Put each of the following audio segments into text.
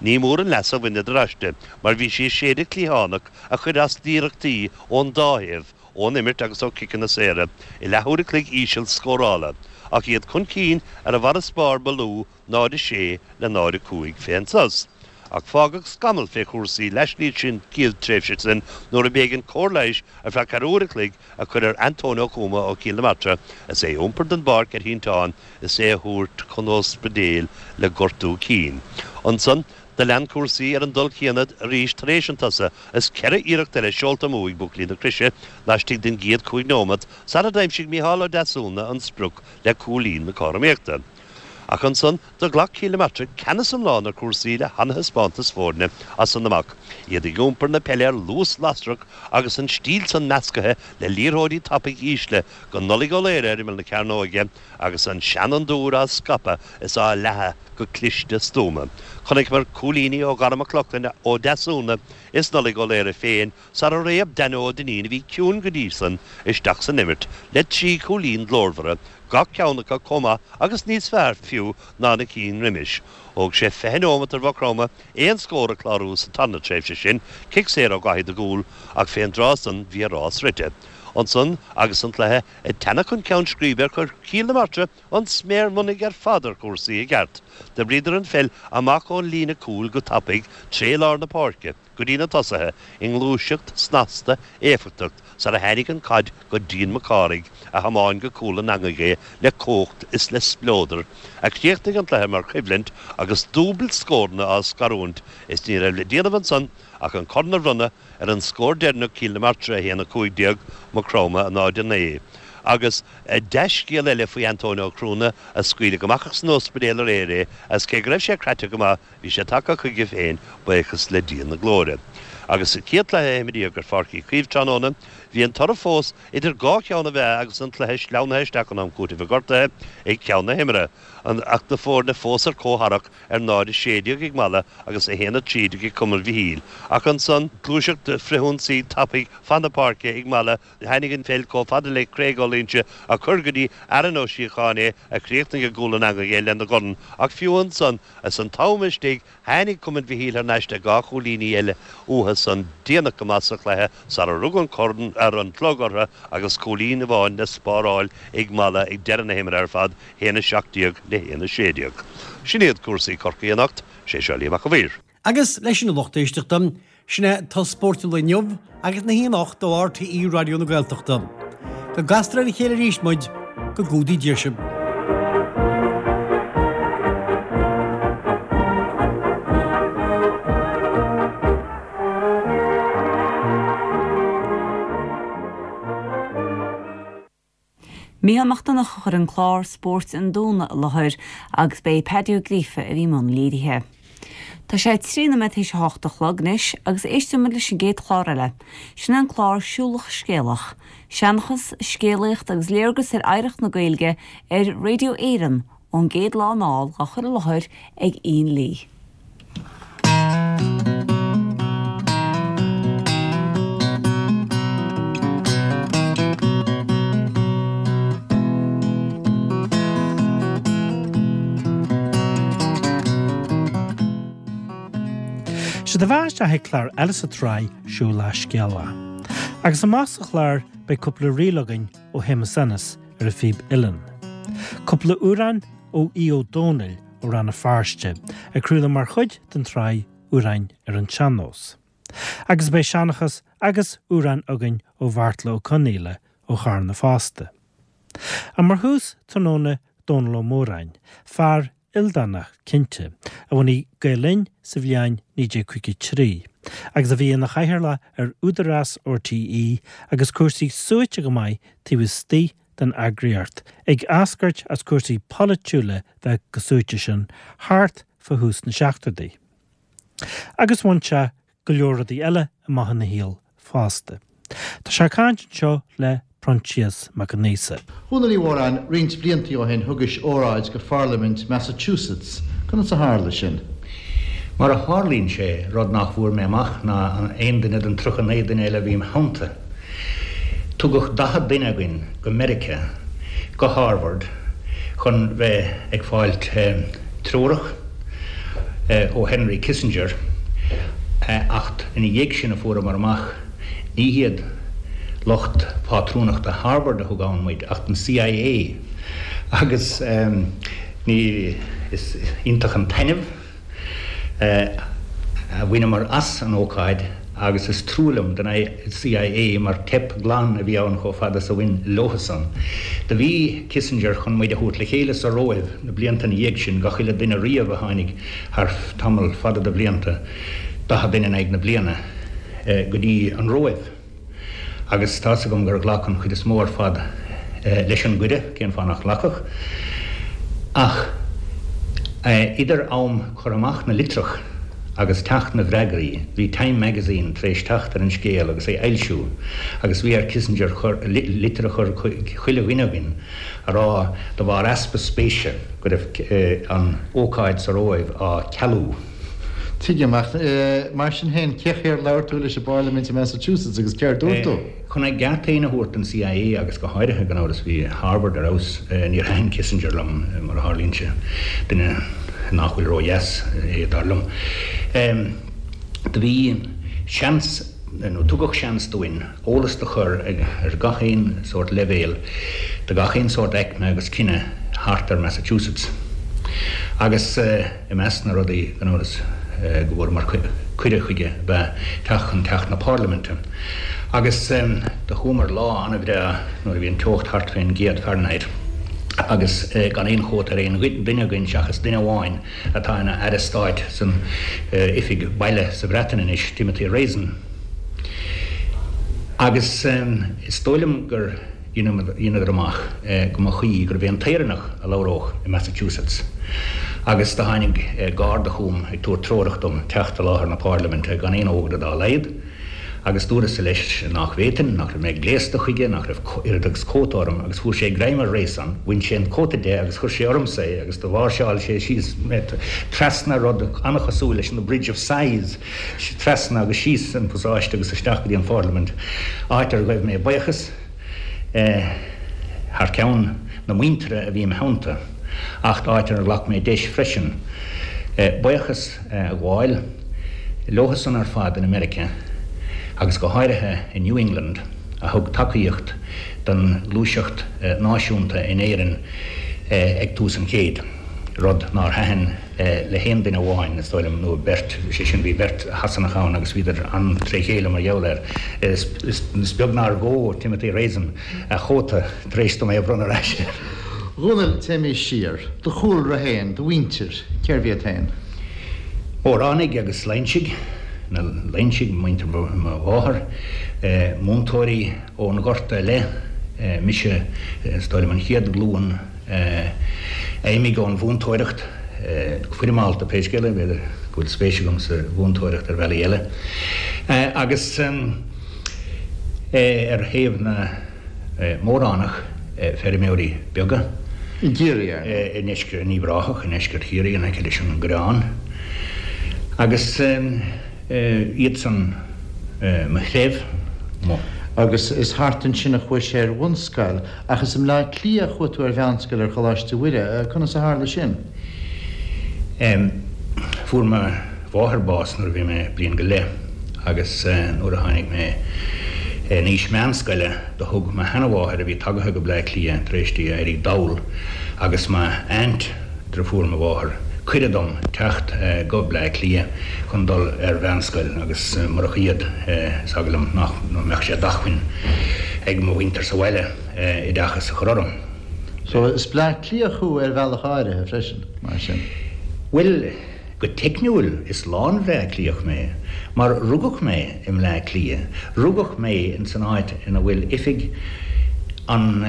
Ní mór an leas a bhaineadar aisti mar bhí sí ag séideadh cliathánach a chuir as d'iarrachtaí ón dá thaobh, ón imirt agus ó chiceanna saora, i leathuair a chloig íseal scórála, ach iad chun cinn ar an bhfarasbarr ba lú, 0-6 le 0-5 fén sos. Ach fágadh scamall fé chúrsaí laistíos den chéad tréimhse sin nuair a b'éigean cóir leighis ar feadh ceathrú uair a chloig a chur ar Antóin Ó Tuama ó Chill na Martra is é ag iompar den bpáirc ar shínteán is é á thabhairt chun ospidéil le gortú cinn. Ansan do lean cúrsaí ar an dul céanna arís tar éis an tsosa is ceithre iarracht eile seolta amú ag buachaillí na Croise laistigh den gcéad chúig nóimeat sara d'aimsigh Micheál Ó Deasúna an sprioc le cúilín na cothromaíochta. Ach ansan do ghlac Cill na Martra ceannas iomlán ar chúrsaí le hana-thaispeántas foirne as san amach, iad ag iompar na peile ar luas lasrach agus an stíl san meascaithe le liathróidí tapaidh ísle go Nollaig Ó Laoire ar imeall na cearnóige agus an seanfhondúir á scaipeadh is á leathadh go cliste stuama. Chonaiceamar cúilíní ó Dhara Mac Lochlainn, Ó Deasúna is Nollaig Ó Laoire féin sara réab Danny Ó Duinnín, a bhí ciúin go dtí san, isteach san imirt le trí chúilín glórmhara, gach ceann acu chomh maith agus níos fearr fiú ná na cinn roimis. Thóg sé 20 nóimeat ar Mhaigh Chromtha aon scór a chlárú sa tarna tréimhse sin, cic saor ó Dhaithí de Gúl, ach fén dtráth san bhí a rás rite. Ansan agus an cluiche ag teannadh chun ceann scríbe chuir Cill na Martra an sméar mionnaigh ar fad ar chúrsaí i gceart. D'oibríodar an pheil amach ón líne cúil go tapaidh tré lár na páirce. go dtí na tosaithe i ngluaiseacht snasta éifeachtach sara tháinig an chaid go Dean Mac Cárthaigh a thiomáin go cúl an eangaigh é le cumhacht is le spleodar, a chríochnaigh an cluiche mar choimhlint agus dúbailt scóranna á scarúint is ní raibh le déanamh ansan ach an corn a bhronnadh ar an scór deireanach Cill na Martra 1, 15, Maigh Chromtha 0, 9. Agus dea-scéal eile faoi Antóin Ó Cruana a scaoileadh amach as an ospidéal aréir é as cé go raibh sé craite go maith Bhí sé tagtha chuige féin, buíochas le Dia na glóire. Agus sa chéad chluiche a imríodh ar Pháirc Uí Chaoimh tráthnóna, bhí an toradh fós idir dhá cheann na meá agus an cluiche sleamhnaithe isteach in am cúitimh gortaithe ag ceann na himeartha, ach na foirne fós ar comhtharrac ar 0-16 ag Mala agus 1-13 ag Cumann Mhichíl. Ach ansan, gluaiseacht frithionsaí tapaidh fan na páirce ag Mala, Tháinig an pheil chomh fada le Craig Ó Loingsigh a chuir go dtí Aaron Ó Síocháin é a chríochnaigh i gcúl an eangaigh é lena dhorn ach fiú ansan is an t-am istigh tháinig Cumann Mhichíl thar n-ais le dhá chúilíní eile uathu san déanach go maith sa chluiche sara rug an corn ar an chlog orthu agus cúilín amháin le spáráil ag Mala ag deireadh na himeartha ar fad, 1-17 le 1-16. Sin iad cúrsaí Chorcaí anocht. Sé seo Liam Mac a' Mhaoir. Agus leis sin a lucht éisteachta, sin é turas spóirt an lae inniu agus na hoíche anocht ó RTÉ Raidió na Gaeltachta. Go gcastar ar a chéile arís muid, go gcumhdaí Dia sibh. Mícheál Mac Donncha a chuir an clár Spóirt an Domhnaigh i láthair agus ba é Paddy Ó Gríofa a bhí i mbun léirithe. Tá sé 3 nóiméad théis a hocht a chlog anois agus éistfidh muid leis an gcéad chlár eile. Sin é an clár Siúlach Scéalach. Seanchas, scéalaíocht agus léargas ar oidhreacht na Gaeilge ar Radio Éireann ón gcéad lá anall á chur i láthair ag Ian Lee. Sé do bheatha isteach ag clár eile sa tsraith Siúlach Scéalach. Agus amach sa chlár beidh cúpla ríl againn ó Shéamus Ennis ar an phíb uilleann. Cúpla amhrán ó Aodh Ó Domhnaill ó Rann na Feirste, ag craoladh mar chuid den tsraith Amhráin ar an tSean-Nós. Agus beidh seanchas agus amhráin againn ó Bheartla Ó Conaola ó Charna fosta. Ach mar thús tráthnóna Dónal Ó Móráin, fear ildánach cinnte, a bhunaigh Gael Linn sa bhliain 1953 agus a bhí ina chathaoirleach ar Údarás RTÉ agus cúrsaí suaite go maith taobh istigh den eagraíocht, ag eascairt as cúrsaí polaitiúla bheith chomh suaite sin thart fá thús na seachtóidí. Agus bhain sé go leor rudaí eile amach ina shaol fosta. Tá sé ag caint anseo le Proinsias Mac Con Aosa. A Dhónaill Uí Mhóráin, roinnt bliantaí ó shin thugais óráid go Pharlaimint Massachusetts. Conas a tharla sin? Mar a tharlaíonn sé, rud nach bhfuair mé amach ná aon duine den 39 duine eile a bhí im theannta, Tugadh 40 duine againn go Meiriceá, go Harvard, chun bheith ag fáilt treorach. ó Henry Kissinger acht ina dhiaidh sin a fuaireamar amach ní hiad lucht pátrúnachta Harvard a thug ann muid acht an CIA agus ní is iontach an taitneamh a bhaineamar as an ócáid agus is trua liom don CIA mar teip glan a bhí ann chomh fada is a bhain leothusan. Do bhí Kissinger chun muid a thabhairt le chéile sa Róimh na blianta ina dhiaidh sin, gach uile duine riamh a tháinig thar tamall fada de bhlianta, 40 duine in aghaidh na bliana, go dtí an Róimh. Agus tá's agam gur ghlac an chuid is mó ar fad leis an gcuireadh, cén fáth nach nglacfadh? Ach idir am cur amach na litreach agus teacht na bhfreagraí, bhí Time Magazine tar éis teacht ar an scéal agus é a fhoilsiú, agus bhí ar Kissinger litir a chur chuig chuile dhuine againn a rá, de bharr easpa spéise, go raibh an ócáid sa Róimh á cealú. Tuigim, ach mar sin féin, cé chaoi ar labhair tú leis i bParlaimint i Massachusetts agus céard dúirt tú? Chun a gceart féin a thabhairt don CIA agus go háirithe, gan amhras, bhí Harvard ar fheabhas, níor thaitin Kissinger liom, mar a tharlaíonn sé, duine nach bhfuil ródheas é, dar liom. Do bhí seans, nó tugadh seans dúinn, eolas do chur ar gach aon sórt leibhéal do gach aon sórt aicme agus cine thart ar Massachusetts. Agus i measc na rudaí, gan amhras, go bhfuaireamar cuireadh chuige ab ea teacht chun Teach na Parlaiminte. Agus do chuamar lá an-bhreá nuair a bhí an teocht thart fén gcéad Fahrenheit agus gan aon chóta ar aon duine againn seachas duine amháin atá ina Aire Stáit san Oifig Baile sa Bhreatain anois, Timothy Raisin. Agus is dóigh liom gur dheineadar amach go mba chuí gurbh é an tÉireannach a labhródh i Massachusetts. Agus do tháinig garda chugam ag tabhairt treorach dom teacht i láthair na Pairliminte gan aon fhógra dá laghad. Agus dúras-sa leis nach bhféadfainn, nach raibh mé gléasta chuige, nach raibh oiread agus cóta orm, agus fuair sé greim ar Raisin, bhain sé an cóta de agus chuir sé ormsa é agus do mháirseáil sé síos mé trasna rud an-chosúil leis an The Bridge of Sighs, trasna agus síos an pasáiste agus isteach go dtí an Pharlaimint, áit ar ghaibh mé buíochas thar ceann na muintire a bhí im theannta, acht áit ar ghlac mé deis freisin buíochas a ghabháil leothusan ar fad in America agus go háirithe i New England a thug tacaíocht don ghluaiseacht náisiúnta in Éirinn ag tús an chéid, rud nár thaitin le haon duine amháin, is dóigh liom, nó beirt, sé sin, bhí beirt Shasanach ann agus bhíodar an-tré chéile mar gheall air. Is beag nár ghó Timothy Raisin a chóta tar éis dom é a bhronnadh ar ais air. A Dhónaill, téimís siar. Do chúlra féin, do mhuintir, cérbh iad féin? Móránaigh agus Loingsigh, na Loingsigh, muintir mo mháthar, múinteoirí ón Ghorta i leith, mise, is dóigh liom, an chéad ghlúin a imigh ón mhúinteoireacht go foirmeálta, pé scéal é, b'fhéidir go bhfuil spéis agam sa mhúinteoireacht ar bhealaí eile. Agus ar thaobh na. Móránach, feirmeoirí beaga. I gCiarraí, ar ndóigh. I ndeisceart, in Uíbh Ráthach, i ndeisceart Chiarraí, in aice leis an gCoireán. Agus iadsan mo threibh, mo. Agus is thart ansin a chuais ar bhunscoil, ach is i mBleá Cliath a chuaigh tú ar mheánscoil ar Choláiste Mhuire. Conas a tharla sin? Fuair mo. mháthair bás nuair a bhí mé bliain go leith agus nuair a tháinig mé in aois meánscoile do thug mo sheanamháthair a bhí tagaithe go Bleá Cliath tar éis di éirí dall agus m'aint, driofúr mo mháthar, cuireadh dom teacht go Bleá Cliath chun dul ar mheánscoil agus murach iad is eagal liom nach mbeadh sé d'acmhainn ag mo mhuintir sa bhaile oideachas a chur orm. So is Bleá Cliathach thú ar bhealach áirithe freisin, mar sin? Bhuel. Go teicniúil, is lán-Bhleá Cliathach mé, mar rugadh mé i mBleá Cliath, rugadh mé in san áit ina bhfuil oifig an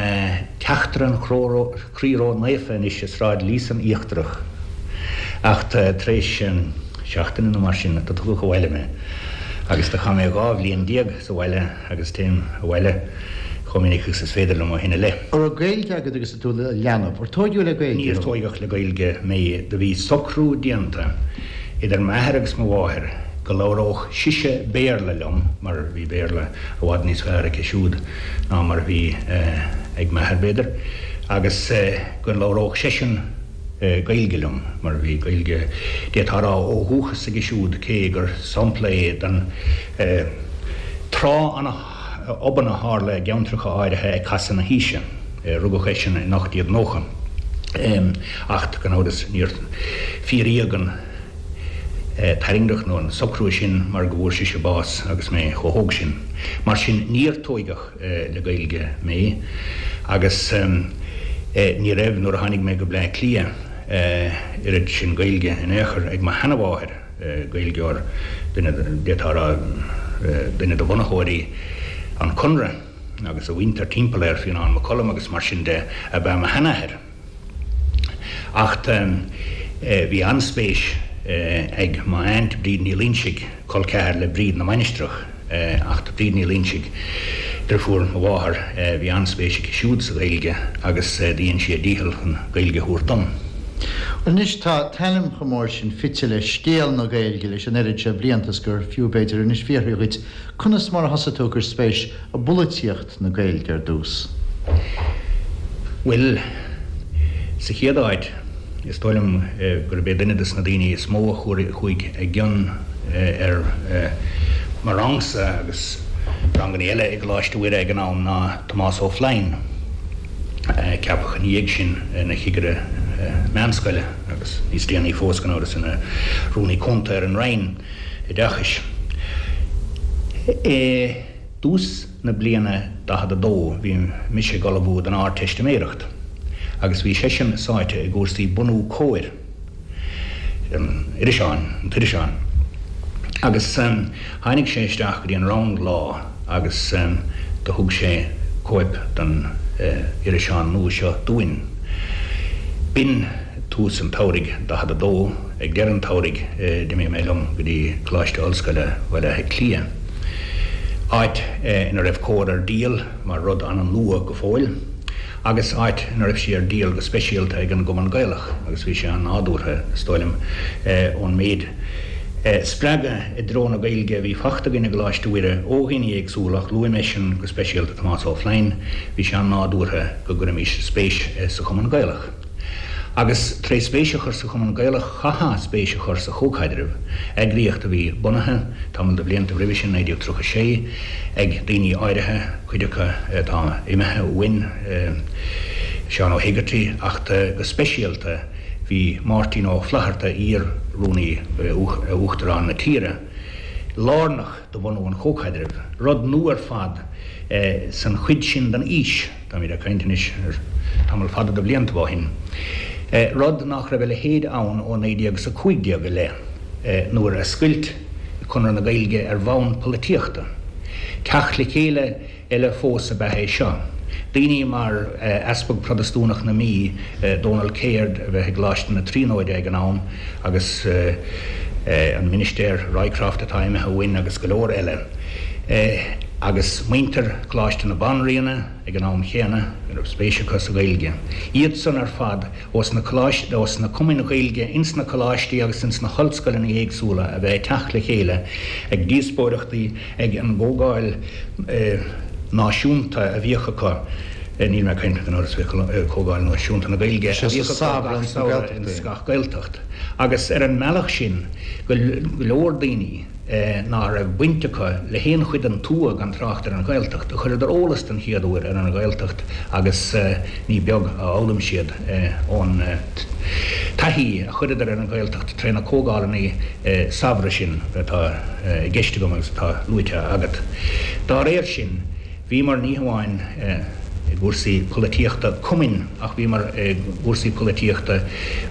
Teachtaire an Chroí Ró-Naofa anois i Sráid Líosain Íochtarach, ach tar éis seachtaine nó mar sin do tugadh abhaile mé agus do chaith mé 12 bhliain sa bhaile agus téim abhaile chomh minic agus is féidir liom ó shin i leith. An raibh Gaeilge agat agus tú i do leanbh? Ar tóigeadh le Gaeilge Níor thú? tóigeadh le Gaeilge mé. Do bhí socrú déanta idir m'athair agus mo mháthair go labhródh sise Béarla liom, mar bhí Béarla i bhfad níos fearr aici siúd ná mar a bhí ag m'athair, b'fhéidir, agus go labhródh seisean. Gaeilge liom, mar bhí Gaeilge, d'fhéadfá a rá, ó dhúchas aige siúd, cé gur sampla é den tráth an-obann a tharla i gceantracha áirithe ag casadh na haoise. Rugadh eisean in 1890, acht gan amhras níor fíoraíodh an tairngreacht nó an socrú sin mar go bhfuair sise bás agus mé chomh hóg sin. Mar sin níor tóigeadh le Gaeilge mé agus ní raibh, nuair a tháinig mé go Bleá Cliath, oiread sin Gaeilge in aon chor ag mo sheanamháthair, Gaeilgeoir, duine, d'fhéadfá a rá, duine de bhunaitheoirí an Chonradh agus a mhuintir timpeall air, Fionán Mac Coluim agus mar sin de, ab ea mo sheanathair. Acht bhí an-spéis ag m'aint Bríd Ní Loingsigh, col ceathar le Bríd na Mainistreach, acht Bríd Ní Loingsigh, deirfiúr mo mháthar, bhí an-spéis aici siúd sa Ghaeilge agus dhein sí a dícheall chun Gaeilge a thabhairt dom. Anois tá t'ainm chomh mór sin fite le scéal na Gaeilge leis an oiread seo blianta is gur fiú b'fhéidir anois fiafraí dhuit conas mar a thosaigh tú ag cur spéis i bpolaitíocht? na Gaeilge ar dtús? Bhuel, sa chéad áit, is dóigh liom gurb é duine de na daoine is mó a chuaigh i gcion ar mo rangsa agus ranganna eile i gColáiste Mhuire ag an am ná Tomás Ó Floinn, a ceapadh ina dhiaidh sin ina chigire meánscoile agus níos déanaí fós, gan amhras, ina Rúnaí Cúnta ar an Roinn Oideachais. I dtús na bliana 42 bhí mise ag ullmhú don Ardteistiméireacht agus bhí seisean sáite i gcúrsaí bunú Comhar, an iriseáin, an t-iriseán. Agus tháinig sé isteach go dtí an rang lá agus do thug sé cóip den iriseán nua seo dúinn. B'in tús an tsamhraidh 42. Ag deireadh an tsamhraidh d'imigh mé liom go dtí Coláiste Ollscoile Bhaile Átha Cliath, áit ina raibh Comhar ar díol mar rud an-nua go fóill, agus áit ina raibh sí ar díol go speisialta ag an gCumann Gaelach, agus bhí sé an-nádúrtha, is dóigh liom, ón méid spreagadh i dtreo na Gaeilge a bhí fachta againn i gColáiste Mhuire ó dhaoine éagsúla, ach luaigh mé sin go speisialta Tomás Ó Floinn, bhí sé an-nádúrtha go gcuirfimis spéis sa Chumann Gaelach. Agus tré spéis a chur sa Chumann Gaelach chaithfeá spéis a chur sa Chomhchaidreamh, eagraíocht a bhí bunaithe, tamall de bhlianta roimhe sin, 1936, ag daoine áirithe, cuid acu atá imithe uainn, Seán Ó hÉigeartaigh, acht go speisialta bhí Máirtín Ó Flaithearta, iar-Rúnaí Uachtarán na tíre, lárnach do bhunú an Chomhchaidrimh, rud nua ar fad san chuid sin den aois. Táimid ag caint anois ar tamall fada de bhliantaibh ó shin. Rud nach raibh a leithéid ann ó 1915 i leith, nuair a scoilt Conradh na Gaeilge ar bhonn polaitíochta. Teacht le chéile eile fós ab ea é seo. Daoine mar Easpag Protastúnach na Mí, Dónal Caird, a bheith i gColáiste na Tríonóide ag an am, agus an Ministéir Rycroft atá imithe uainn agus go leor eile. Agus muintir Choláiste na Banríona ag an am chéanna, a raibh spéis acu sa Ghaeilge. Iad san ar fad ós na coláistí, ós na cumainn Ghaeilge ins na coláistí agus ins na hollscoileanna éagsúla a bheith ag teacht le chéile ag díospóireachtaí ag an gcomhdháil náisiúnta a bhíodh acu, níl mé ag caint gan amhras faoi Chomhdháil Náisiúnta na Gaeilge, a bhíodh acu gach samhradh ins gach Gaeltacht. Agus ar an mbealach sin go leor daoine, ná raibh baint acu le haon chuid den tuath gan trácht ar an Ghaeltacht, a chuireadar eolas den chéad uair ar an Ghaeltacht agus ní beag a fhoghlaim siad ón taithí a chuireadar ar an Ghaeltacht tré na comhdhálanna samhraidh sin atá i gceist agam agus atá luaite agat. Dá réir sin, bhíomar ní hamháin i gcúrsaí polaitíochta cumainn ach bhíomar i gcúrsaí polaitíochta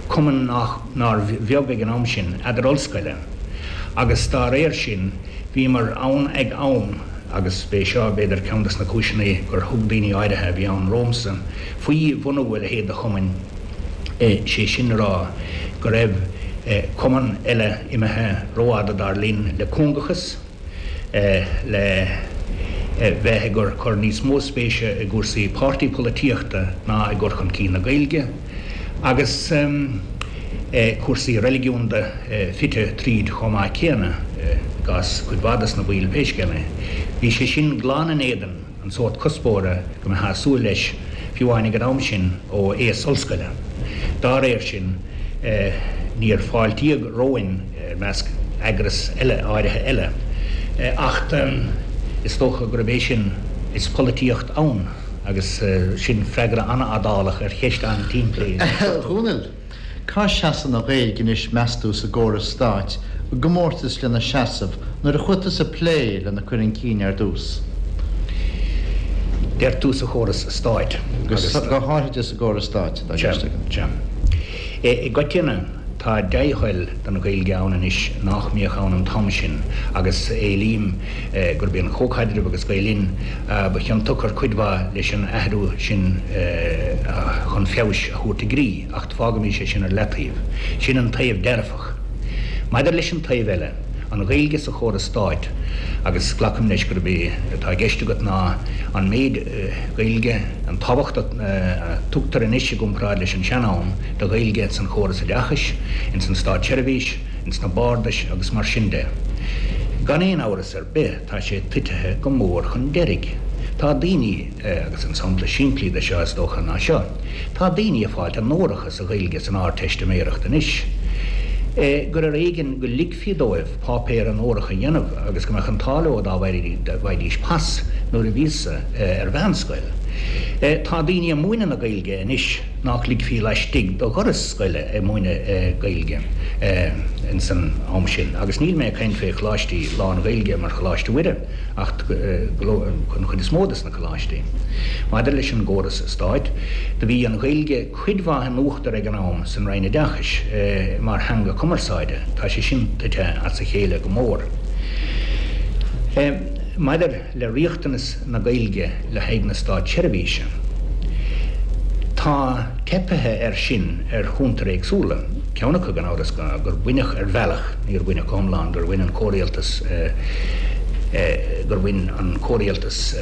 cumann nár bheag ag an am sin, eadar-ollscoile. Agus dá réir sin, bhíomar ann ag am, agus b'é seo, b'fhéidir, ceann de na cúiseanna gur thug daoine áirithe a bhí ann romhamsa faoi bhunú a leithéid de chumainn, sé sin le rá, go raibh cumann eile imithe rófhada, dar linn, le cúngachas, le bheith ag cur níos mó spéise i gcúrsaí páirtí polaitíochta ná i gcur chun cinn na Gaeilge, agus cúrsaí reiligiúnda fite tríd chomh maith céanna, i gcás cuid mhaith de na baill pé scéal é. Bhí sé sin glan in éadan an sórt cuspóra go mbeifeá ag súil leis, fiú amháin ag an am sin, ó aos ollscoile. Dá réir sin, níor fáiltíodh romhainn i measc eagras eile áirithe eile, acht is dócha gurb é sin is polaitíocht ann agus sin freagra an-fhadálach ar cheist an-tsimplí. A Dhónaill, cá seasann an Ghaeilge anois meas tú sa gcóras stáit i gcomórtas lena seasamh nuair a chuaigh tusa ag plé lena cur chun cinn ar dtús? Deir tú sa chóras stáit agus. Go háithrid sa gcóras stáit atá i gceist agam. Sea. I gcoitinne, tá dea-thoil don Ghaeilge ann anois nách mbíodh ann an t-am sin agus éilím gurb é an Comhchaidreamh agus Gael Linn ba chiontach ar cuid mhaith leis an athrú sin chun feabhais a thabhairt i gcrích, acht fágaimis é sin ar leataobh. Sin an taobh dearfach. Maidir leis an taobh eile, an Ghaeilge sa chóras stáit, agus glacaim leis gurb é atá i gceist agat ná an méid Gaeilge, an tábhacht a tugtar anois i gcomparáid leis an sean-am do Ghaeilge ins an chóras oideachais, ins an státseirbhís, ins na bardais agus mar sin de. Gan aon amhras ar bith tá sé titithe go mór chun deiridh. Tá daoine, agus an sampla simplí de seo is dócha ná seo, tá daoine ag fáilt onóracha sa Ghaeilge san Ardteistiméireacht anois, gur ar éigean go ligfí dóibh páipéar onórach a dhéanamh agus go mbeadh an t-ádh leo dá bhfaighidís pas nuair a bhíos-sa ar mheánscoil. Tá daoine ag múineadh na Gaeilge anois nách ligfí laistigh de dhoras scoile ag múineadh Gaeilge ins an am sin agus níl mé ag caint fé choláistí lán-Ghaeilge mar Choláiste Mhuire ach an chuid is mó des na coláistí. Maidir leis an gcóras stáit, do bhí an Ghaeilge cuid mhaith in uachtar ag an am san Roinn Oideachais mar theanga cumarsáide. Tá sé sin tite as a chéile go mór. Maidir le riachtanas na Gaeilge le haghaidh na státseirbhíse, tá teipithe air sin ar chuntair éagsúla. Ceann acu, gan amhras, gur baineadh ar bhealach, níor baineadh go hiomlán, gur bhain an comhrialtas, gur bhain an comhrialtas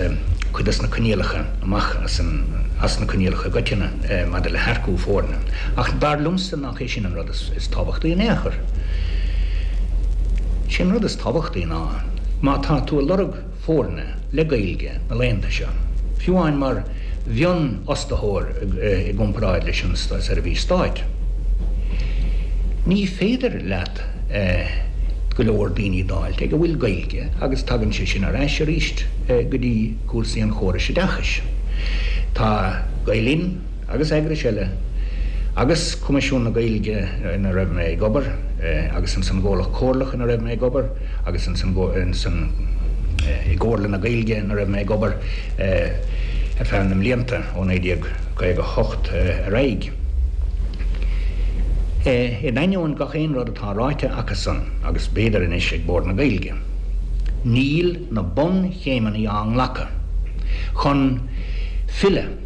cuid des na coinníollacha amach as an, as na coinníollacha i gcoitinne maidir le hearcú foirne. Ach dar liomsa nach é sin an rud is tábhachtaí in aon chor. Sé an rud is tábhachtaí ná má tá tú ag lorg foirne le Gaeilge na laethanta seo, fiú amháin mar mhionfhostaitheoir i gcomparáid leis an seirbhís stáit, ní féidir leat go leor daoine d'fháilt ag a bhfuil Gaeilge agus tagann sé sin ar ais arís go dtí cúrsaí an chórais oideachais. Tá Gael Linn agus eagrais eile agus Coimisiún na Gaeilge ina raibh mé ag obair agus ins an gComhlacht Comhairleach ina raibh mé ag obair agus ins an ins an i gComhairle na Gaeilge ina raibh mé ag obair ar feadh na mblianta ó 1958 ar aghaidh. In ainneoin gach aon rud atá ráite acusan agus b'fhéidir anois ag Bord na Gaeilge, níl na bunchéimeanna á nglacadh chun filleadh,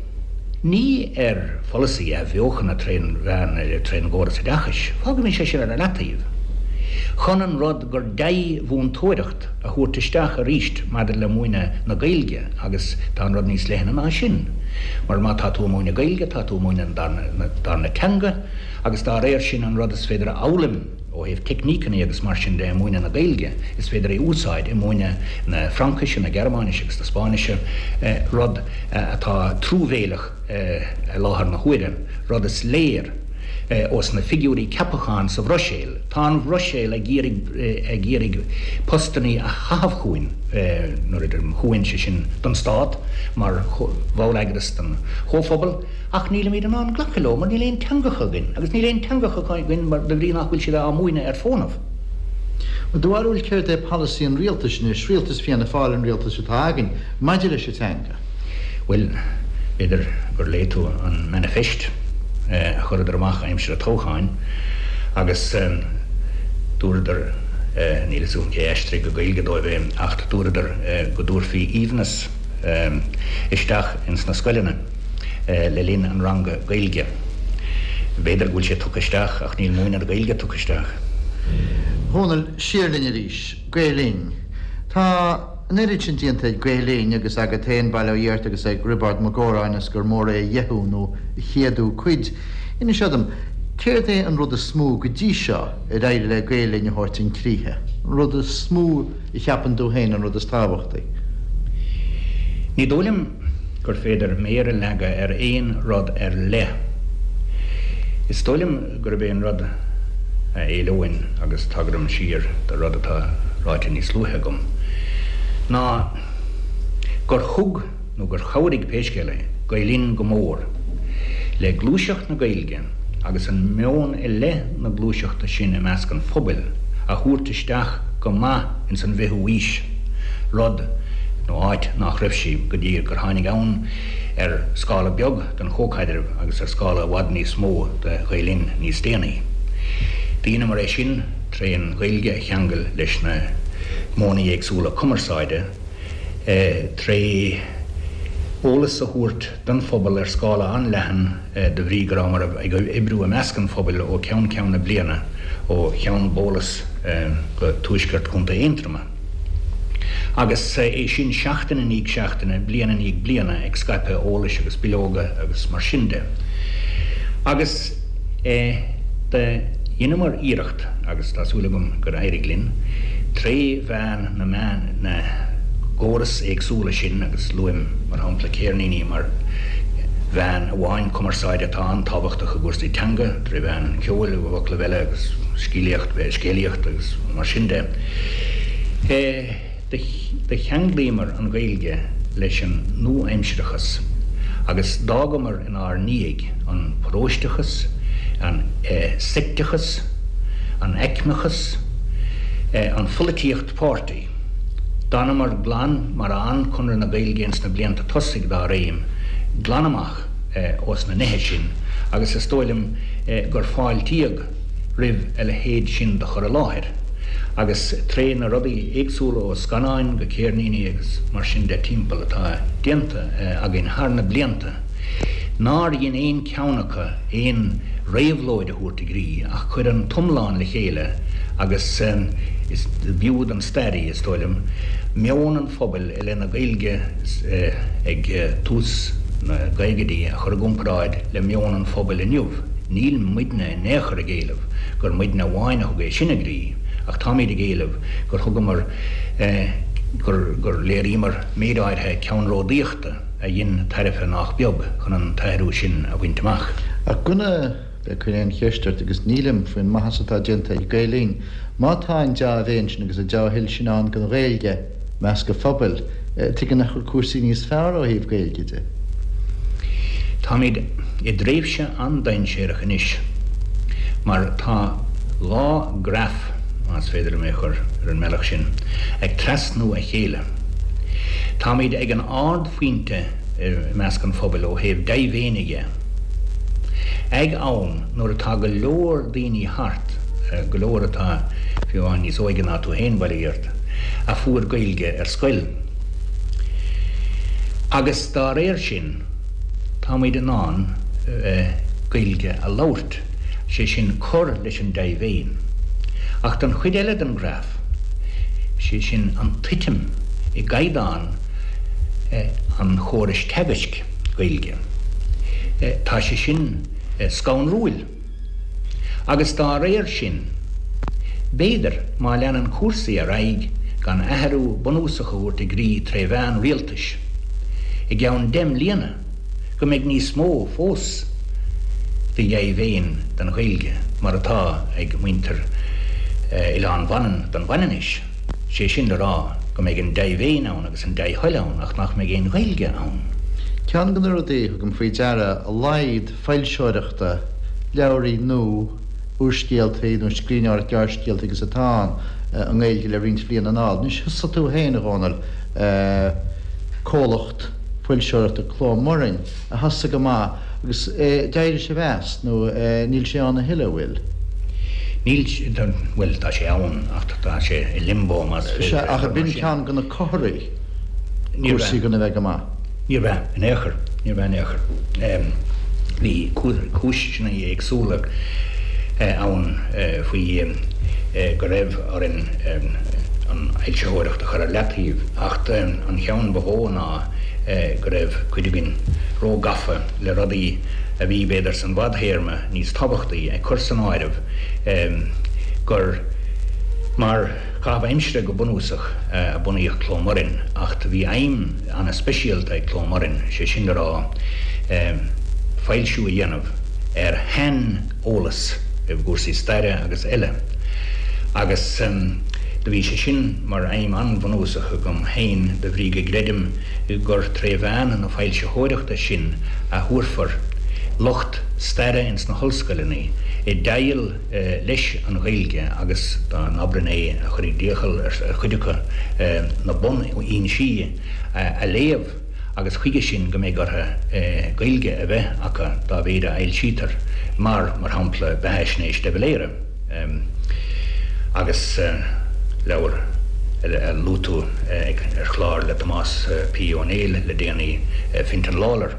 ní ar pholasaí athbheochana trén mheán trén gcóras oideachais, fágaimis é sin ar leataobh, chun an rud gur dea-mhúinteoireacht a thabhairt isteach arís maidir le múineadh na Gaeilge agus tá an rud níos leithne ná sin mar má tá tú ag múineadh Gaeilge tá tú ag múineadh an darna teanga agus dá réir sin an rud is féidir a fhoghlaim Ó thaobh teicníceanna agus mar sin de i múineadh na Gaeilge, is féidir é a úsáid i múineadh na Fraincise, na Gearmáinise agus na Spáinnise, rud atá truamhéileach i láthair na huaire, rud is léir ós na figiúirí ceapacháin sa Bhruiséil. Tá an Bhruiséil ag iarraidh ag iarraidh postannaí a chaitheamh chugainn, nuair a deirim chugainn, sé sin don Stát mar bhalleagras den Chomhphobal. Ach nílimid in ann glacadh leo mar níl aon teangacha againn, agus níl aon teangacha againn mar de bhrí nach bhfuil siad á múineadh ar fónamh. I do bharúil céard é polasaí an rialtais anois, rialtas Fianna Fáil an rialtas atá againn, maidir leis an teanga? Bhuel, b'fhéidir gur léigh tú an manifest a chuireadar amach aimsir an toghcháin agus dúradar, níl fhios agam cé a aistrigh go Gaeilge dóibh é, ach dúradar go dtabharfaí aoibhneas isteach ins na scoileanna. le linn an ranga Gaeilge. B'fhéidir go bhfuil sé tugtha isteach ach níl múineadh na Gaeilge tugtha isteach. Dhónaill, siar linn arís. Gael Linn. Tá an oiread sin déanta ag Gael Linn agus agat féin, bail ó Dhia ort, agus ag Roibeárd Mac Góráin is gur mór é a dheichiú nó a chéadú cuid. Inis dom, céard é an rud is mó go dtí seo ar éirigh le Gael Linn a thabhairt chun críche? An rud is mó a cheapann tú féin, an rud is tábhachtaí? Ní dóigh liom gur féidir méar a leagadh ar aon rud ar leith. Is dóigh liom gurb é an rud a éileoinn, agus tagraim siar do rud atá ráite níos luaithe agam, ná gur thug, nó gur chabhraigh pé scéal é, Gael Linn go mór le gluaiseacht na Gaeilge agus an meon i leith na gluaiseachta sin i measc an phobail a thabhairt isteach go maith ins an bhfichiú aois, rud, nó áit nach raibh sí go dtí gur tháinig ann ar scála beag den chomhchaidreamh agus ar scála i bhfad níos mó de Ghael Linn níos déanaí. Dheineamar é sin tré an Ghaeilge a cheangal leis na modhanna éagsúla cumarsáide, tré eolas a thabhairt don phobal ar scála an-leathan de bhrí go rabhamar ag oibriú i measc an phobail ó cheann ceann na bliana, ó Cheann Bólas go tuaisceart Chontae Aontroma. Agus é sin seachtain i ndiaidh seachtaine, bliain i ndiaidh bliana, ag scaipeadh eolais agus bileoga agus mar sin de. Agus do dheineamar iarracht, agus tá súil agam gur éirigh linn, tré mheán na meán, na gcóras éagsúla sin, agus luaim, mar shampla, céirníní mar mheán amháin cumarsáide atá an-tábhachtach i gcúrsaí teanga, tré mheán an cheoil, i bhfoclaibh eile, agus scéalaíocht, scéalaíocht agus mar sin de. Do cheanglaíomar an Ghaeilge leis an nua-aimsearachas agus d'fhágamar inár ndiaidh an paróisteachas, an seicteachas, an aicmeachas, an pholaitíocht páirtí. D'fhanamar glan mar a fhan Conradh na Gaeilge ins na blianta tosaigh dá réim, glan amach ós na nithe sin agus is dóigh liom gur fáiltíodh roimh a leithéid sin de chur i láthair agus tré na rudaí éagsúla ó scannáin go céirníní agus mar sin de timpeall atá déanta againn thar na blianta nár dhein aon cheann acu aon réabhlóid a thabhairt i gcrích ach chuir an t-iomlán le chéile agus is b'fhiú don stairí, is dóigh liom, meon an phobail i leith na Gaeilge ag tús na gcaogaidí a chur i gcomparáid le meon an phobail inniu. Níl muidne in aon chor ag éileamh gur muidne amháin a thug é sin i gcrích ach táimid ag éileamh gur thugamar, gur, gur léiríomar méid áirithe ceannródaíochta a dhein tairbhe nách beag chun an t-athrú sin a bhaint amach. Ach gona ag cur aon cheist ort, agus nílim, faoin maitheas atá déanta ag Gael Linn, má tá an dea-mhéin sin agus an dea-thoil sin ann don Ghaeilge i measc an phobail, tuige nach bhfuil cúrsaí níos fearr ó thaobh Gaeilge de? Táimid i dtréimhse an-dainséarach anois mar tá dhá graf, más féidir liom é a chur ar an mbealach sin, ag trasnú a chéile. Táimid ag an ardphointe i measc an phobail ó thaobh dea-mhéine dhe. Ag am nuair atá go leor daoine thart, go leor atá fiú amháin níos óige ná tú féin, bail ó Dhia ort, a fuair Gaeilge ar scoil. Agus dá réir sin, táimid in ann Gaeilge a labhairt, sé sin cur leis an dea-mhéin. Ach don chuid eile den ghraf, sé sin an tuitim i gcaighdeán an chórais teagaisc Gaeilge, tá sé sin scanrúil. Agus dá réir sin, b'fhéidir, má leanann cúrsaí ar aghaidh gan athrú bunúsach a thabhairt i gcrích tré mheán rialtais, i gceann 10 mbliana, go mbeidh níos mó fós de dhea-mhéin don Ghaeilge mar atá ag muintir Oileán Mhanann don Mhanainnis, sé sin le rá go mbeidh an dea-mhéin ann agus an dea-thoil ann ach nach mbeidh aon Ghaeilge ann. Ceann de na rudaí a thugaim faoi deara, a laghad foilseoireachta, leabhraí nó úrscéaltaí nó scríbhneoireacht gearrscéalta agus atá ann i nGaeilge le roinnt bliana anall. Anois thosaigh tú féin, a Dhónaill, comhlacht foilseoireachta Cló Murainn a thosaigh go maith agus d'éirigh sibh as nó níl sé ann a thuilleadh, an bhfuil? Níl, bhuel tá sé ann ach tá sé i limbo más féidir Sea, ach ab in ceann de na comharthaí cúrsaí chun a bheith go maith? Níorbh ea in aon chor, níorbh ea in aon chor. Bhí cúiseanna éagsúla ann faoi go raibh orainn an fhoilsitheoireacht a chur ar leataobh, ach an cheann ba mhó ná go raibh cuid againn róghafa le rudaí a bhí, b'fhéidir, san bhfadthéarma níos tábhachtaí, ag cur san áireamh gur mar chaitheamh aimsire go bunúsach a bunaíodh Cló Murainn, ach bhí aidhm an-speisialta ag Cló Murainn, sé sin le rá, foilsiú a dhéanamh. ar shaineolas i gcúrsaí staire agus eile agus do bhí sé sin mar aidhm an-bhunúsach agam féin de bhrí go gcreidim gur tré mheán na foilsitheoireachta sin a thabharfar lucht staire ins na hollscoileanna i dteighil leis an Ghaeilge agus dá n-abrainn é a chuirfidh d'iachall ar chuid acu na bunfhoinsí a léamh. agus chuige sin go mbeidh orthu Gaeilge a bheith acu dá mhéid a fhoilsítear, mar, mar shampla, beathaisnéis de Valera agus leabhar a luaigh tú ar chlár le Tomás P. Ó Néill le déanaí, Fintan Lawlor.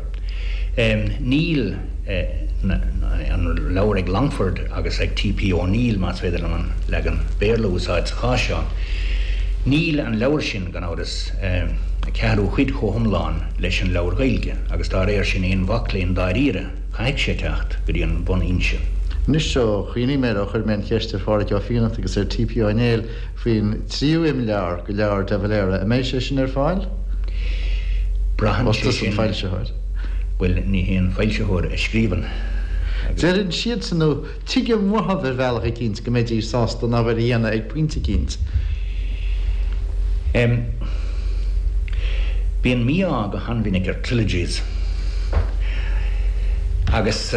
Níl an leabhar ag Longford agus ag T. P. O'Neill, más féidir liom an leagan Béarla a úsáid sa chás seo, níl an leabhar sin, gan amhras, ceathrú cuid chomh hiomlán leis an leabhar Gaeilge agus dá réir sin aon mhac léinn dáiríre, caithfidh sé teacht go dtí an bhunfhoinse. Anois ó chuimhnigh mé air ó chuir mé an cheist ar Phádhraic Ó Fiannachta agus ar T.P. Ó Néill faoin tríú imleabhar de leabhar de Valera, an mbeidh sé sin ar fáil? Braitheann sé sin. An foilsitheoir. Bhuel, ní hé an foilsitheoir a scríobhann agus. Deireann siadsan nó Tuigim uathu ar bhealach eicínt go mbeidís sásta an obair a dhéanamh ag pointe eicínt. Em. Bíonn mí-ádh go han-mhinic ar trilogies. Agus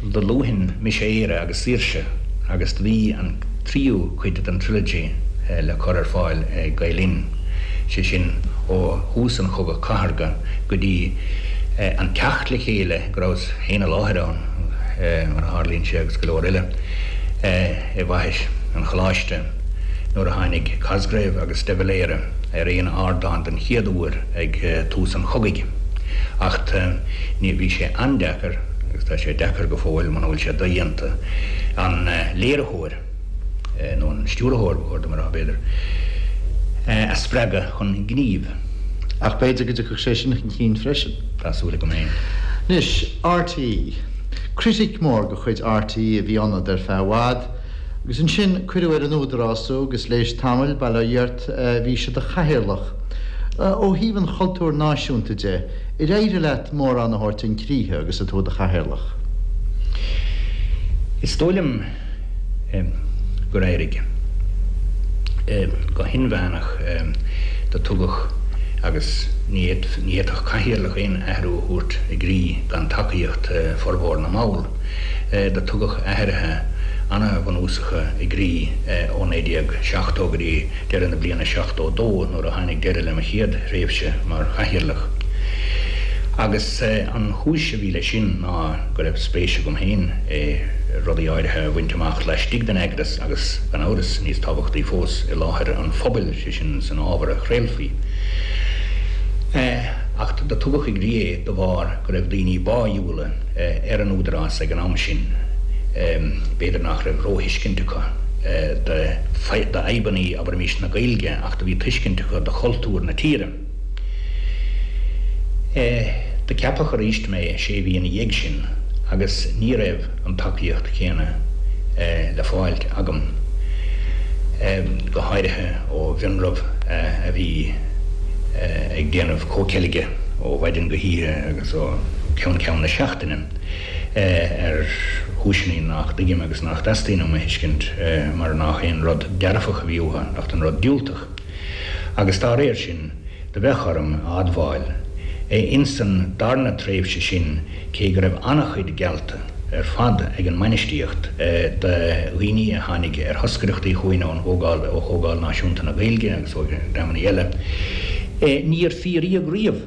do luafainn Mise Éire agus Saoirse agus do bhí an tríú cuid den trilogy le cur ar fáil ag Gael Linn, sé sin ó thús an Chogadh Cathartha go dtí an teacht le chéile go rabhas féin i láthair ann, mar a tharlaíonn sé, agus go leor eile, i bhFaiche an Choláiste nuair a tháinig Cosgrave agus de Valera ar aon ardán den chéad uair ag tús an chogaidh. Acht ní, bhí sé an-deacair, agus tá sé deacair go fóill muna bhfuil sé dodhéanta, an léiritheoir, nó an stiúrthóir ba chóir dom a rá, b'fhéidir, a spreagadh chun gnímh. Ach b'fhéidir go dtiocfadh sé sin chun cinn freisin. Tá súil agam féin. Anois, RTÉ. Critic mór de chuid RTÉ a bhí ionat ar feadh i bhfad, agus ansin cuireadh ar an Údarás thú agus l'éis tamaill, bail ó Dhia ort, bhís i do chathaoirleach. Ó thaobh an chultúir náisiúnta de, ar éirigh leat mórán a thabhairt chun críche agus tú i do chathaoirleach? Is dóigh liom gur éirigh. Go hinmheánach do tugadh agus ní fhéadfadh cathaoirleach aon athrú a thabhairt i gcrích gan tacaíocht formhór na mball. Do tugadh athruithe ana-bhunúsacha i gcrích ó 1970 go dtí deireadh na bliana 72 nuair a tháinig deireadh le mo chéad thréimhse mar chathaoirleach. Agus an chúis a bhí leis sin ná go raibh spéis agam féin i rudaí áirithe a bhaint amach laistigh den eagras agus, gan amhras, níos tábhachtaí fós, i láthair an phobail, sé sin san ábhar a chraolfaí. Ach do tugadh i gcrích é de bharr go raibh daoine báidhiúla ar an Údarás ag an am sin. B'fhéidir nach raibh róthuiscint acu d'fhadhbanna, abraimis, na Gaeilge ach do bhí tuiscint acu do chultúr na tíre. Do ceapadh arís mé sé mhí ina dhiaidh sin agus ní raibh an tacaíocht chéanna le fáilt agam, go háirithe ó mhionraibh a bhí ag déanamh comhcheilge ó mhaidin go hoíche agus ó cheann ceann na seachtaine ar chúiseanna nach dtuigim agus nach dteastaíonn uaim a thuiscint mar nach aon rud dearfach a bhí uathu ach an rud diúltach. Agus dá réir sin, do bheadh orm a admháil, insan darna tréimhse sin, cé go raibh an-chuid geallta ar fad ag an mbainistíocht do dhaoine a tháinig ar thoscaireachtaí chugainn ón gComhdháil, ó Chomhdháil Náisiúnta na Gaeilge agus ó dhreamanna eile, níor fíoraíodh riamh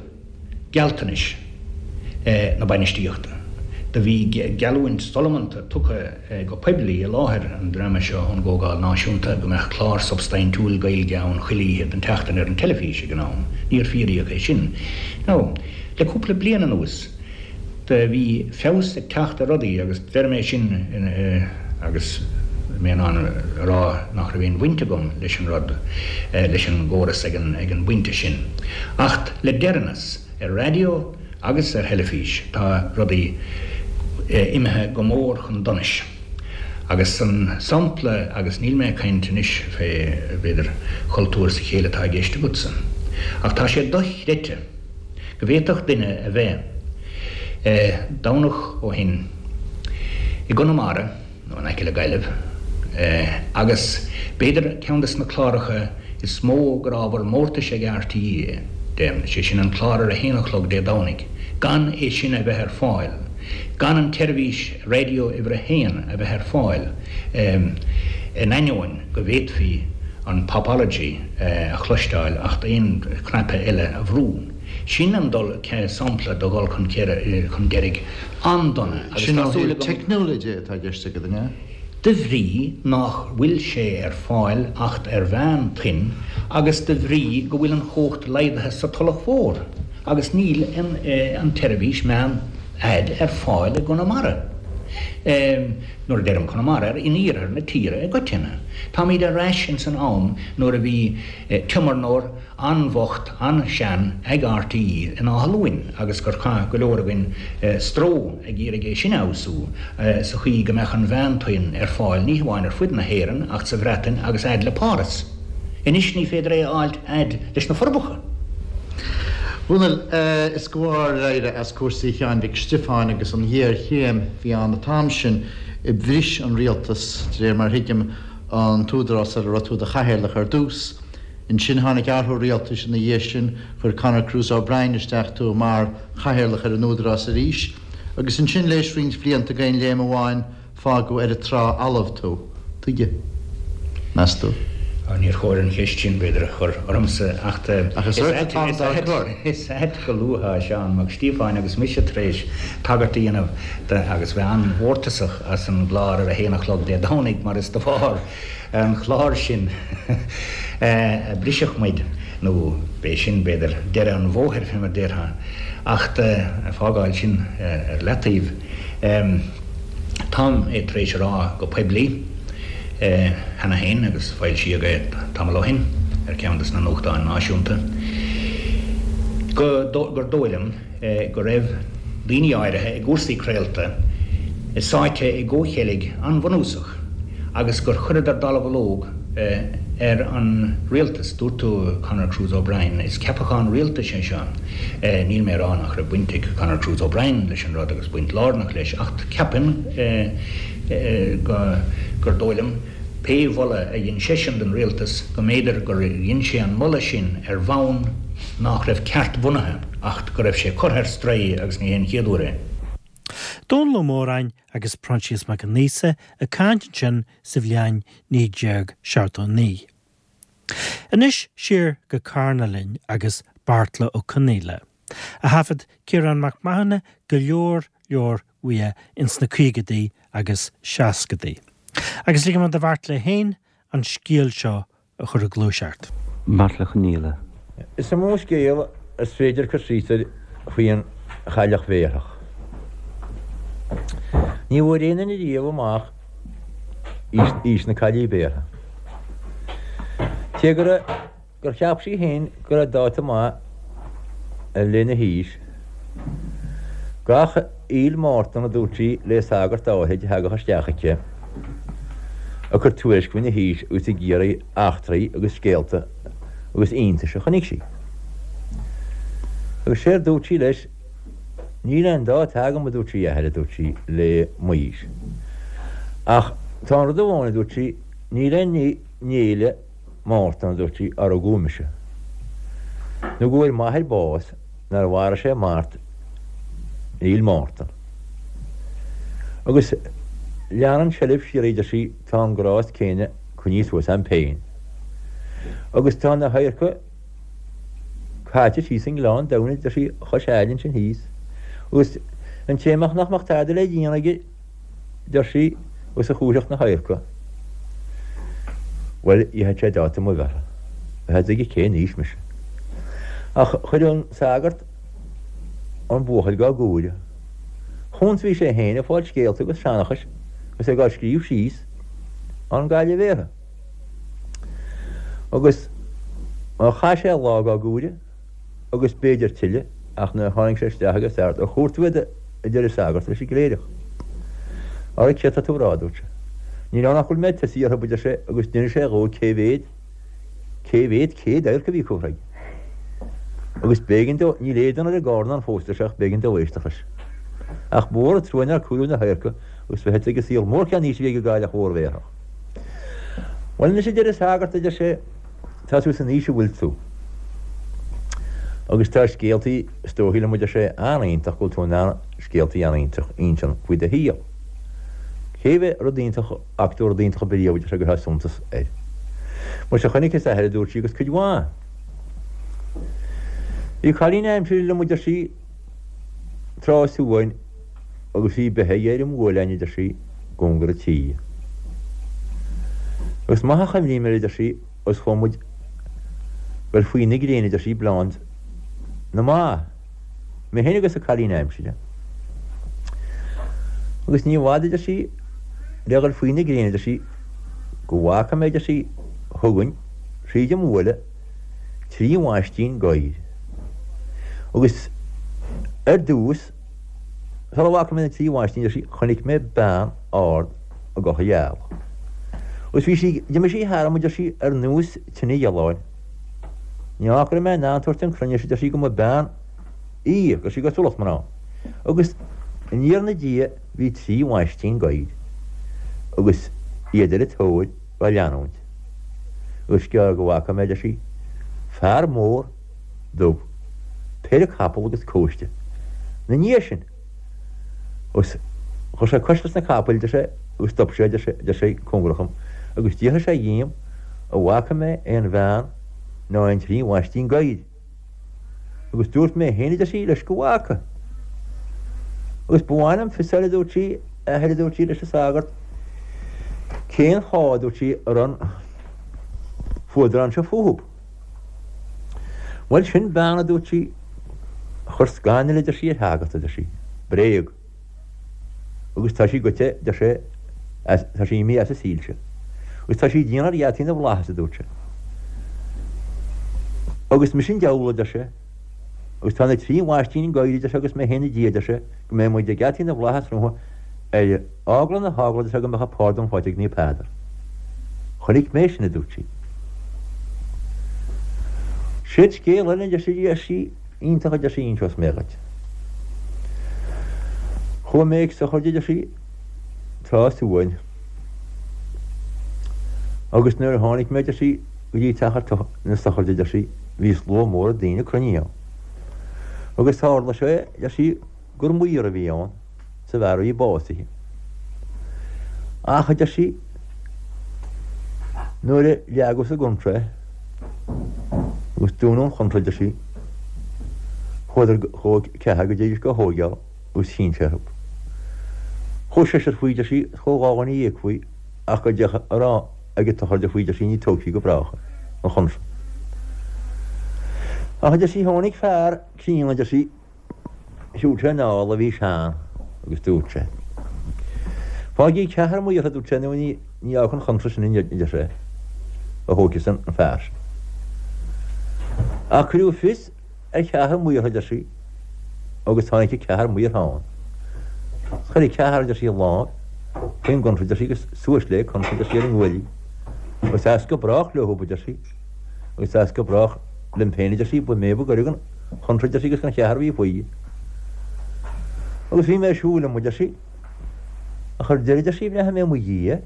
gealltanais na bainistíochta. Do bhí geallúint solamanta tugtha go poiblí i láthair an dreama seo ón gComhdháil Náisiúnta go mbeadh clár substaintiúil Gaeilge ann chuile oíche den tseachtain ar an teilifís ag an am. Níor fíoraíodh é sin. Now, le cúpla bliain anuas, do bhí feabhas ag teacht ar rudaí agus deirim é sin agus mé in ann a rá nach raibh aon bhaint agam leis an rud, leis an gcóras ag an ag an bpointe sin. Acht le deireanas, ar raidió agus ar theilifís, tá rudaí imithe go mór chun donais. Agus an sampla, agus níl mé ag caint anois fé, b'fhéidir, chultúr sa chéill atá i gceist agatsa, ach tá sé dochreidte go bhféadfadh duine a bheith, Domhnach ó shin. I gConamara, nó in aice le Gaillimh, agus b'fhéidir ceann des na cláracha is mó gur ábhar mórtais ag RTÉ de, sé sin an clár ar a haon a chlog Dé Domhnaigh, gan é sin a bheith ar fáil, gan an tseirbhís raidió uimhir a haon a bheith ar fáil, in ainneoin go bhféadfaí an Popology a chloisteáil acht aon chnaipe eile a bhrú. Sin an dul, sampla de dhul chun deiridh an-dona agus Sin tá ó súil thaobh agam. teicniúla de atá i gceist agat, an ea? De bhrí nách bhfuil sé ar fáil acht ar mheán-toinn agus de bhrí go bhfuil an chumhacht laghdaithe sa Tulach Mhór agus níl an tseirbhís meán-fhaid ar fáil i gConamara. Nuair a deirim Conamara, in iarthar na tíre i gcoitinne. Táimíd ar ais ins an am nuair a bhí tiomarnóir an-bhocht, an-sean ag RTÉ in Áth Luain agus gur chaith go leor againn stró ag iarraidh é sin a fheabhsú sa chaoi go mbeadh an mheántoinn ar fáil ní hamháin ar fud na hÉireann ach sa Bhreatain agus fhad le Páras. Anois ní féidir é a fháilt fhad leis na Forbacha. Dhónaill, is de bharr éirí as cúrsaí Sheáin Mhic Stiofáin agus an ghéarchéim a bhí ann an t-am sin a bhris an rialtas, de réir mar a thuigim, an t-údarás ar a raibh tú i do chathaoirleach ar dtús. Ansin tháinig athrú rialtais ina dhiaidh sin, chuir Conor Cruise O'Brien isteach tú mar chathaoirleach ar an Údarás arís, agus ansin léis roinnt blianta d'aon léim amháin fágadh ar an trá fhalamh tú. Tuige? Meas tú? Níor chóir an cheist sin, b'fhéidir, a chur ormsa, ach Ach is ort atáim dá cur. Is ait go luafá Seán Mac Stíofáin agus mise tar éis tagairt a dhéanamh de agus bheith an-mhórtasach as an gclár ar a haon a chlog Dé Domhnaigh mar is de bharr an chláir sin a briseadh muid, nó b'é sin, b'fhéidir, deireadh an bhóthair, fé mar déarfá. Acht fágáil sin ar leataobh, táim é tar éis a rá go poiblí cheana féin, agus foilsíodh é tamall ó shin ar cheann de na nuachtáin náisiúnta, go, gur dóigh liom, go raibh daoine áirithe i gcúrsaí craolta sáite i gcomhcheilg an-bhunúsach agus gur chuireadar dallamhullóg ar an rialtas. Dúirt tú Conor Cruise O'Brien. Is ceapachán rialtais é seo. Níl mé ag rá nach raibh baint ag Conor Cruise O'Brien leis an rud agus baint lárnach leis ach ceapaim gur dóigh liom, pé mholadh a dhein seisean don rialtas, go mb'fhéidir gur dhein sé an moladh sin ar bhonn nach raibh ceart-bhunaithe acht go raibh sé curtha ar strae agus ní hé an chéad uair é. Dónall Ó Móráin agus Proinsias Mac an Aosa ag caint ansin sa bhliain 1979. Anois siar go Carna linn agus Beartla Ó Conaola, a thaifead Ciarán Mac Mathúna go leor leor uaidh ins na caogadaí agus seascadaí. Agus ligfidh mé do Bheartla féin an scéal seo a chur ag gluaiseacht. Beartla Ó Conaola. Is iomaí scéal is féidir cur síos air faoin chailleach bhéarthach. Ní bhfuair aon duine riamh amach aois na caillí béartha. Cé go raibh. gur cheap sí féin go raibh dáta maith lena haois. Gach aoil Mártan, a dúirt sí le sagart áithrid a thagadh isteach aici, ag cur tuairisc faoina haois agus ag iarraidh eachtraí agus scéalta agus iontais a chonaic sí. Agus séard dúirt sí leis, Níl aon dáta agam, a dúirt sí, a athair, a dúirt sí, le m'aois. Ach tá aon rud amháin, a dúirt sí, níl aon ní in fhéile Mártan, a dúirt sí, ar rugadh mise. Nó go bhfuair m'athair bás nuair a mharaigh sé mart in Fhéil Mártan. Agus leanann seilbh síoraí, a deir sí, tá an grást céanna coinnithe suas a'm féin. Agus tá na hadharca caite síos i nGleann Domhain, a deir sí, chois aille ansin thíos. Agus an té nach mbeadh tada le déanamh aige, deir sí, agus a chúirfeadh na hadharca. Bhuel, gheobhadh sé dáta mo bheirthe. Bheadh a fhios aige cén aois mise. Ach chuir an sagart an buachaill dhá gcomhaireamh. Chúns bhí sé féin ag fáil scéalta agus seanchais agus é dhá scríobh síos ón gcailleach bhéartha. Agus chaith sé lá dhá gcomhaireamh. agus b'fhéidir tuilleadh, ach nuair a tháinig sé isteach ag an sagart, Ar chomhair tú iad? a deir an sagart leis an gcléireach. Ara céard tá tú a rá, a dúirt sé. Níl ann ach go bhfuil mé ag tosaí orthu, a deir sé, agus d'inis sé dhó cé mhéad, cé mhéad céad adharc a bhí curtha aige. Agus b'éigean dó, níl éadan ar an gcarnán fós, a deir sé, ach b'éigean dó éisteacht leis. Ach ba mhór an trua nár comhaireadh na hadharca. Agus bheith ag an saol mór cén aois a bhí ag an gcailleach mhór bhéarthach. Bhuel anois a deir an sagart, a deir sé, tá tú san aois a bhfuil tú. Agus tá scéaltaí, is dóichí liom, a deir sé, an-iontach go bhfuil tú in ann scéaltaí an-iontach a insean faoi do shaol. Cé mhéad rud iontach a fhaca tú rud iontach ar bith riamh, a deir sé, go raibh suntas air. Muise chonaiceas a athair, a dúirt sí, agus cuid mhaith. Bhí cailín aimsire liom, a deir sí, tráth is uain agus bhí beithe aige ar an mbuaileán, a deir sí, i gcóngar an tí. Agus maith a chuimhním air, a deir sí, agus chuaigh muid goil faoi na gréine, a deir sí, ag bleáint na mba, mé féin agus an cailín aimsire. Agus ní i bhfad, a deir sí, le dhul faoi na gréine, a deir sí, go bhfaca mé, a deir sí, chugainn thríd an mbuaile, 3 mhaistín gadhair. Agus ar dtús, sula bhfaca mé na 3 mhaistín, deir sí, chonaic mé bean ard i gculaith gheal. Agus bhí sí, d'imigh sí tharam, a deir sí, ar nós tine ghealáin. Ní fhaca go raibh mé in ann tabhairt chun cruinnis, a deir sí, go mba bean í, go raibh sí cosúlacht mná. Agus aniar 'na diaidh bhí 3 mhaistín gadhair agus iad ar a tóir dhá leanúint. Agus is gearr go bhfaca mé, a deir sí, fear mór dubh, péire capall agus cóiste 'na ndiaidh sin. Agus chuir sé cois leis na capaill, a deir sé, agus stop sé, a deir sé, a deir sé, cóngarach dhom, agus d'fhiafraigh sé dhíom an bhfaca mé aon bhean ná aon trí mhaistín gadhair. Agus dúirt mé féin, a deir sí, leis go bhfaca. Agus ba mhaith liom fios a fháil, a dúirt sí, a athair, a dúirt sí leis an sagart, cén fáth, a dúirt sí, a raibh an fuadrán seo fúthub. Bhuel, sin bean, a dúirt sí, a chuir scannal, a deir sí, ar shagart, a deir sí, bréag. Agus tá sí goite, deir sé, as, tá sí imithe as an saol seo. Agus tá sí ag déanamh ar gheataí na bhflaitheas, a dúirt sé. Agus mise an diabhal, a deir sé, agus tá na trí mhaistín gadhair, a deir sé, agus mé féin ina diaidh, a deir sé, go mbeidh muid ag geataí na bhflaitheas rompu ar eagla na heagla, a deir sé, go mbeadh an pardún faighte ag Naomh Peadar. Chonaic mé sin, a dúirt sí. Séard scéal eile, a deir sí, a deir sí, Iontach, a deir sí, inseos mé dhuit. Chuaigh mé ag sochraid, a deir sí, tráth is uain. Agus nuair a tháinig mé, a deir sí, go dtí teach na sochraide, a deir sí, bhí slua mór daoine cruinnithe ann. Agus tharla sé, a deir sí, gur maor a bhí ann. sa bhfear a bhí básaithe. Ach, a deir sí, nuair a leagadh sa gcontráth é, agus dúnadh an chontráth, a deir sí, chuadar, chuaigh ceathrar go dtéidís dhá thóigeáil agus chinn sé orthu. Chuaigh seisear faoi, a deir sí, is chuaigh 12 dhuine faoi, ach go dtéadh a raibh ag an tsochraid faoi, a deir sí, ní tógfaí go brách é, an chontráth. Ach, a deir sí, tháinig fear críonna, a deir sí, Shiúil sé anall a bhí sean agus dúirt sé, Faighigí ceathrar maortha, a dúirt sé, nó ní fhágfar an chontráth sin, a deir sé, a thóigfeas an fear sin. Ach cuireadh fios ar cheathrar maortha, a deir sí, agus tháinig an ceathrar maortha ann. Chuir an ceathrar, a deir sí, a lámh faoin gcontráth, a deir sí, agus suas léi an chontráth, a deir sí, ar a nguaillí. Agus as go brách leo, a deir sí, agus as go brách liom féin, a deir sí, ba mé ba ghaire don chontráth, a deir sí, agus don cheathrar a bhí faoi. Agus bhí mé ag siúl liom, a deir sí, ach ar deireadh, a deir sí, bhreathnaigh mé i mo dhiaidh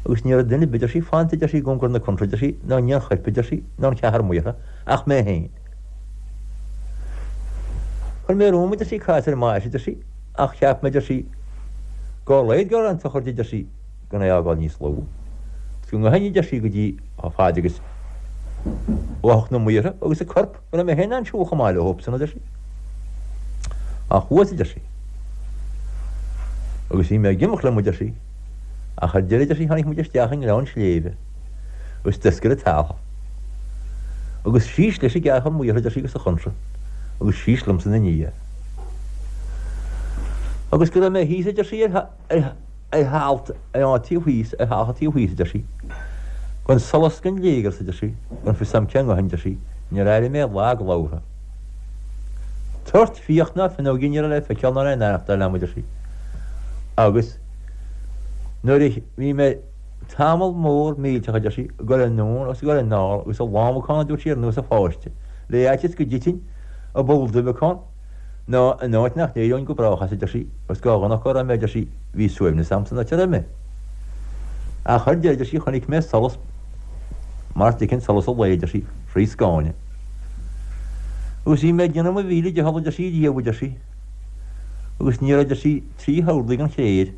agus ní raibh duine ar bith, a deir sí, fanta, a deir sí, i gcóngar na contráth, a deir sí, ná ní an choirp, a deir sí, ná an ceathrar maortha, ach mé féin. Chuir mé romham, a deir sí, cás ar an mbáis, a deir sí, ach cheap mé, a deir sí, dá laghad go raibh an tsochraid, a deir sí, gan é a fhágáil níos lú. Agus go ngabhfainn, a deir sí, go dtí chomh fada agus bheadh na maortha agus an corp, go raibh mé féin in ann siúl chomh maith leosan, a deir sí. Ach chuas, a deir sí. Agus bhí mé ag imeacht liom, a deir sí. Ach ar deireadh, a deir sí, tháinig muid isteach i ngleann sléibhe agus d'oscail an t-ealach. Agus síos leis an gceathrar maortha, a deir sí, agus an chontra, agus síos liomsa ina ndiaidh. Agus go raibh mé thíos, a deir sí, ar ar thalamh ar an taobh thíos, ar thalamh an taobh thíos, a deir sí. Gan solas gan léigear, a deir sí, gan fios a'm cé ngabhfainn, a deir sí, níor airigh mé lag labhartha. Tort fiach ná finneoigín ní raibh le feiceáil ná le n-aireachtáil a'm, a deir sí. Agus nuair a bhí mé tamall mór millteach, a deir sí, ag dul anonn agus ag dul anall agus ag lámhacán, a dúirt sí, ar nós a pháiste, le fhaitíos go dtitfinn i bpoll duibheacán. Ná in áit nach n-éireoinn go brách as, a deir sí, agus dhá dhona go raibh mé, a deir sí, bhí suaimhneas a'm san áit a raibh mé. Ach ar deireadh, a deir sí, chonaic mé solas mar a d'fheicfinn solas an lae, a deir sí, thrí scáine. Agus bhí mé ag déanamh mo mhíle dicheall, a deir sí, riamh, a deir sí, agus ní raibh, a deir sí, 3 horlaí den chréir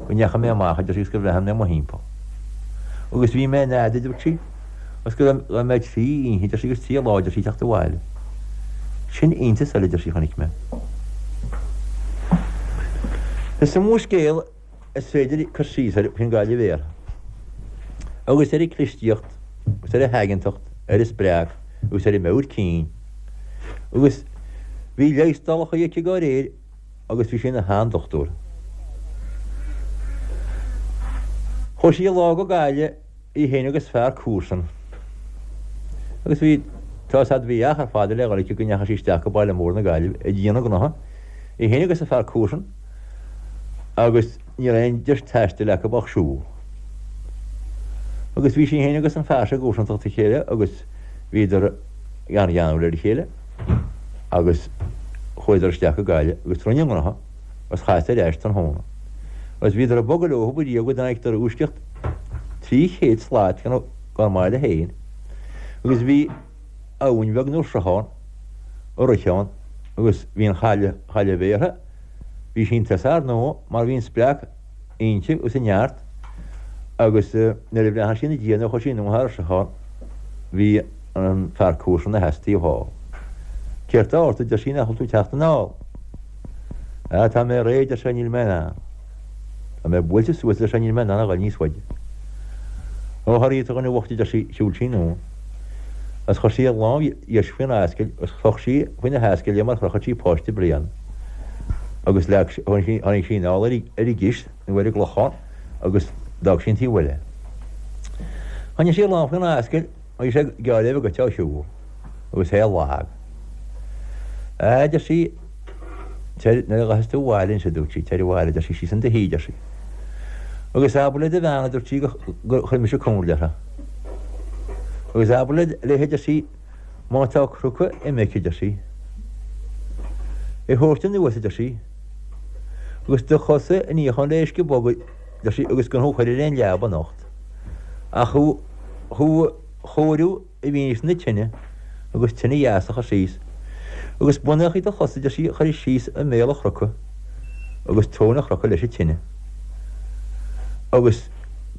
go ndeachaigh mé amach, a deir sí, agus gur bhreathnaigh mé mo thimpeall. Agus bhí mé in ead, a dúirt sí, agus go raibh mé 3 oíche, a deir sí, agus 3 lá, a deir sí, ag teacht abhaile. Sin iontas eile, a deir sí, a chonaic mé. Is iomaí scéal is féidir cur síos air faoin gcailleadh bhéartha, agus ar a clistíocht, agus ar a haigeantacht, ar a spreac, agus ar a meabhair cinn. Agus bhí leigheastálacha aici dá réir agus bhí sí ina sheandochtúir. Chuaigh sí lá go Gaillimh, í féin agus fear comharsan. Agus bhí, tá's a'd, bhí achar fada le dhul aici go ndeachaigh sí isteach go baile mór na Gaillimhe ag déanamh gnoithe, í féin agus a fear comharsan, agus ní raibh aon deis taistil acu ach siúl. Agus bhí sí féin agus an fear seo i gcomharsantacht a chéile agus bhíodar an-gheanúil ar a chéile agus chuadar isteach go Gaillimh agus rinne a ngnoithe agus chas ar ais tráthnóna. Agus bhíodar ag bogadh leo riamh go dtáinigdar uaisceacht 300 slat dá mbaile féin agus bhí abhainn bheag nó sruthán ag rith ann agus bhí an chailleach, chailleach bhéartha, bhí sí chun tosaigh ar ndóigh mar bhí an spreac inti agus an neart agus nuair a bhreathnaigh sí ina diaidh nuair a chuaigh sí anuas thar an sruthán bhí an fear comharsan ina sheasamh taobh thall. Céard tá ort a deir sí nach bhfuil tú ag teacht anall? Ah tá mé réidh a deir sé níl mé in ann. Tá mé buailte suas a deir sé níl mé in ann a ghoil níos faide. Ó a Ríta a dhuine bhoicht a deir sí shiúil sí anonn agus chuir sí a lámh dheis faoina ascaill agus chroch sí faoina hascaill é mar a chrochfadh sí páiste bliana agus leag sí, tháinig sí anall ar an gcis nó ar an gclochán agus d'fhág sí an taobh eile. Choinnigh sí a lámh faoina ascaill, bhí sé gearr le bheith agat á shiúl agus é lag. A deir sí, tar, nuair a ghabhfas tú abhaile anois a dúirt sí, tar abhaile, a deir sí, síos in do shuí, a deir sí. Agus abair le do bhean, a dúirt sí, gur chuir mise comhairle uirthi. Agus abair léi, a deir sí, Má tá crúca ime aici, a deir sí, é thabhairt anuas, a deir sí, agus do chosa a níochán le uisce bog, a deir sí, agus gan thú a chur ar aon leaba anocht, ach thú thú a chóiriú i bhfianaise na tine agus tine dheas a chur síos, agus bonnachaí do chos, a deir sí, a chur síos i mbéal an chrúca agus tóin an chrúca leis an tine. Agus